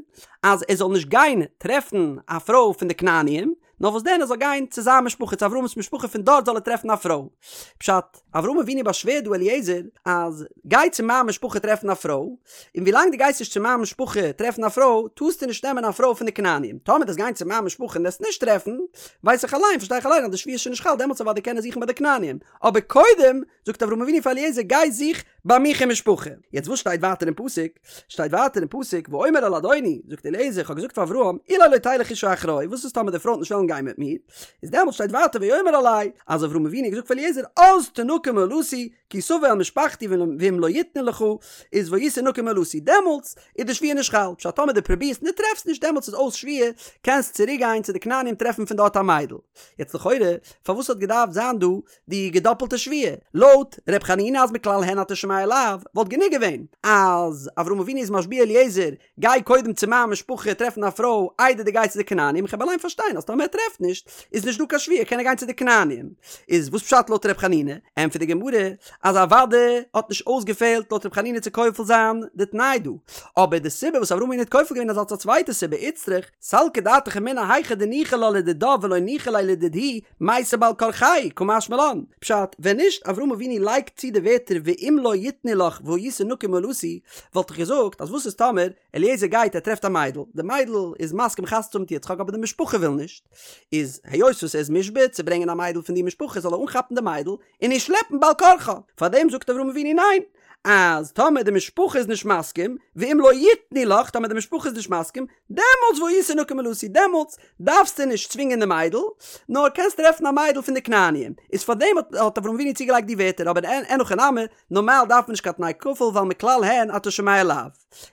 אז ער זאל נישט גיין טרעפן א פרוי פון די כנעניים, נאר וואס דען ער זאל גיין צו זיין משפחה צו אברהם'ס משפחה פון דארט זאל ער טרעפן א פרוי. פשט, אברהם אבינו באשווערט דא אליעזר אז גיי צו מיין משפחה טרעפן א פרוי, און ווילאנג דו גייסט נישט צו מיין משפחה טרעפן א פרוי טארסטו נישט נעמען א פרוי פון די כנעניים, טאמער דו וועסט גיין צו מיין משפחה און וועסט נישט טרעפן, ווייס איך אליין, פארשטיי איך אליין אז די שבועה איז שוין נישט חל, דעמאלטס אוודאי קען ער זוכן ביי די כנעניים, אבער קודם זאגט אברהם אבינו פאר אליעזר גיי זוך ביי מיך אין משפחה. יעצט וואס שטייט ווייטער אין פסוק? שטייט ווייטער אין פסוק ואומר אל אדוני, זאגט אליעזר איך האב געזאגט פאר אברהם, אולי לא תלך אשה אחרי, וואס איז טאמער די פרוי וועט נישט וועלן גיין מיט מיר? איז דעמאלטס שטייט ווייטער ויאמר אלי, אז אברהם אבינו האט געזאגט פאר אליעזר אז תנקה מאלתי, כי תבוא אל משפחתי ואם לא יתנו לך, איז והיית נקי מאלתי, דעמאלטס איז די שבועה נישט חל, פשט טאמער דו פרובירסט און דו טרעפסט נישט דעמאלטס איז אויס שבועה, קענסט צוריק גיין צו די כנענים טרעפן פון דארט א מיידל. יעצט לכאורה, פארוואס האט געדארפט זיין דא די געדאפלטע שבועה? לויט ר' חנינא אז מכלל הן אתה שומע לאו, וואלט גענוג געווען אז אברהם אבינו איז משביע אליעזר, גיי קודם צו מיין משפחה טרעפן א פרוי איידער דו גייסט צו די כנענים, איך האב אליין פארשטיין אז טאמער ער טרעפט נישט איז נישט דא קיין שבועה קען ער גיין צו די כנענים. איז וואס פשט לויט ר' חנינא? ענטפערט די גמרא אז אוודאי האט נישט אויסגעפעלט לויט ר' חנינא צו כופל זיין די תנאי דא, אבער די סיבה וואס אברהם אבינו האט כופל געווען איז אלס א צווייטע סיבה איצטריך סלקא דעתך אמינא היכא דניחא לה לדידה ולא ניחא ליה לדידהו מייתי בעל כרחייהו קא משמע לן, פשט, ווען נישט אברהם אבינו לייגט צו די ווערטער ואם לא יתנו לך והיית נקי מאלתי, וואלט איך געזאגט אז וואס איז טאמער אליעזר גייט ער טרעפט א מיידל, די מיידל איז מסכים חתונה צו האבן מיט יצחק אבער די משפחה וויל נישט, איז היות וואס ער איז מושבע צו ברענגען א מיידל פון די משפחה זאל ער אנכאפן די מיידל און איר שלעפן בעל כרחה, פארדעם זאגט אברהם אבינו ניין, אז טאמער די משפחה איז נישט מסכים, ואם לא יתנו לך, טאמער די משפחה איז נישט מסכים, דעמאלטס והיית נקי מאלתי, דעמאלטס דארפסטו נישט צווינגען די מיידל, נאר קענסט טרעפן א מיידל פון די כנעניים. איז פארדעם האט אברהם אבינו צוגעלייגט די ווערטער, אבער אין הכי נמי, נארמאל דארף מען נישט קיין תנאי כפול ווייל מכלל הן אתה שומע לאו.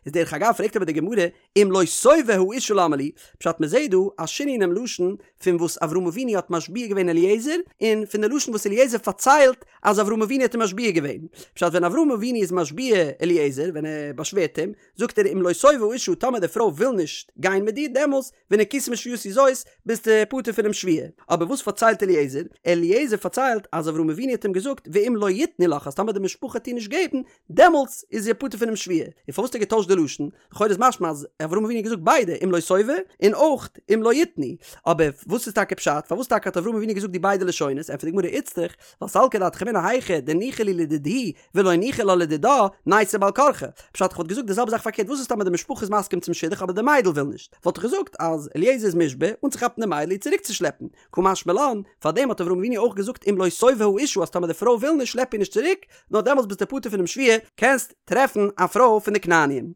איז דרך אגב פרעגט אבער די גמרא, אם לא תאבה האשה למה לי, פשט מען זעהט דא א שינוי אינעם לשון פון וואס אברהם אבינו האט משביע געווען אליעזר, און פון די לשון וואס אליעזר פארציילט אז אברהם אבינו האט אים משביע געווען. פשט ווען אברהם אבינו איז משביע אליעזר, ווען ער באשווערט אים, זאגט ער אם לא תאבה האשה טאמער די פרוי וויל נישט גיין מיט דיר דעמאלס ונקית משבועתי זאת ביסטו פטור פונעם שבועה. אבער וואס פארציילט אליעזר? אליעזר פארציילט אז אברהם אבינו האט אים געזאגט ואם לא יתנו לך אז טאמער די משפחה וועט דיר נישט געבן דעמאלטס איז ער פטור פונעם שבועה. און פארוואס האט ער געטוישט די לשון? לכאורה איז משמע אז אברהם אבינו האט געזאגט ביידע אם לא תאבה און אויך אם לא יתנו. אבער וואס איז טאקע פשט? פארוואס טאקע האט אברהם אבינו געזאגט די ביידע לשונות? ענטפערט די גמרא איצטריך ווייל סלקא דעתך אמינא היכא דניחא להו לדידהו ולא ניחא לה לדידה, נייתי בעל כרחה. פשט איך וואלט געזאגט די זעלבע זאך פארקערט וואס איז טאמער די משפחה איז מסכים צום שידוך אבער די מיידל וויל נישט? וואלט איך געזאגט אז אליעזר איז מושבע אנצוכאפן די מיידל איר צוריקצושלעפן. קא משמע לן, פארדעם האט אברהם אבינו אויך געזאגט אם לא תאבה האשה אז טאמער די פרוי וויל נישט שלעפ איר נישט צוריק, נאר דעמאלטס ביסטו פטור פונעם שבועה, קענסט טרעפן א פרוי פון די כנעניים.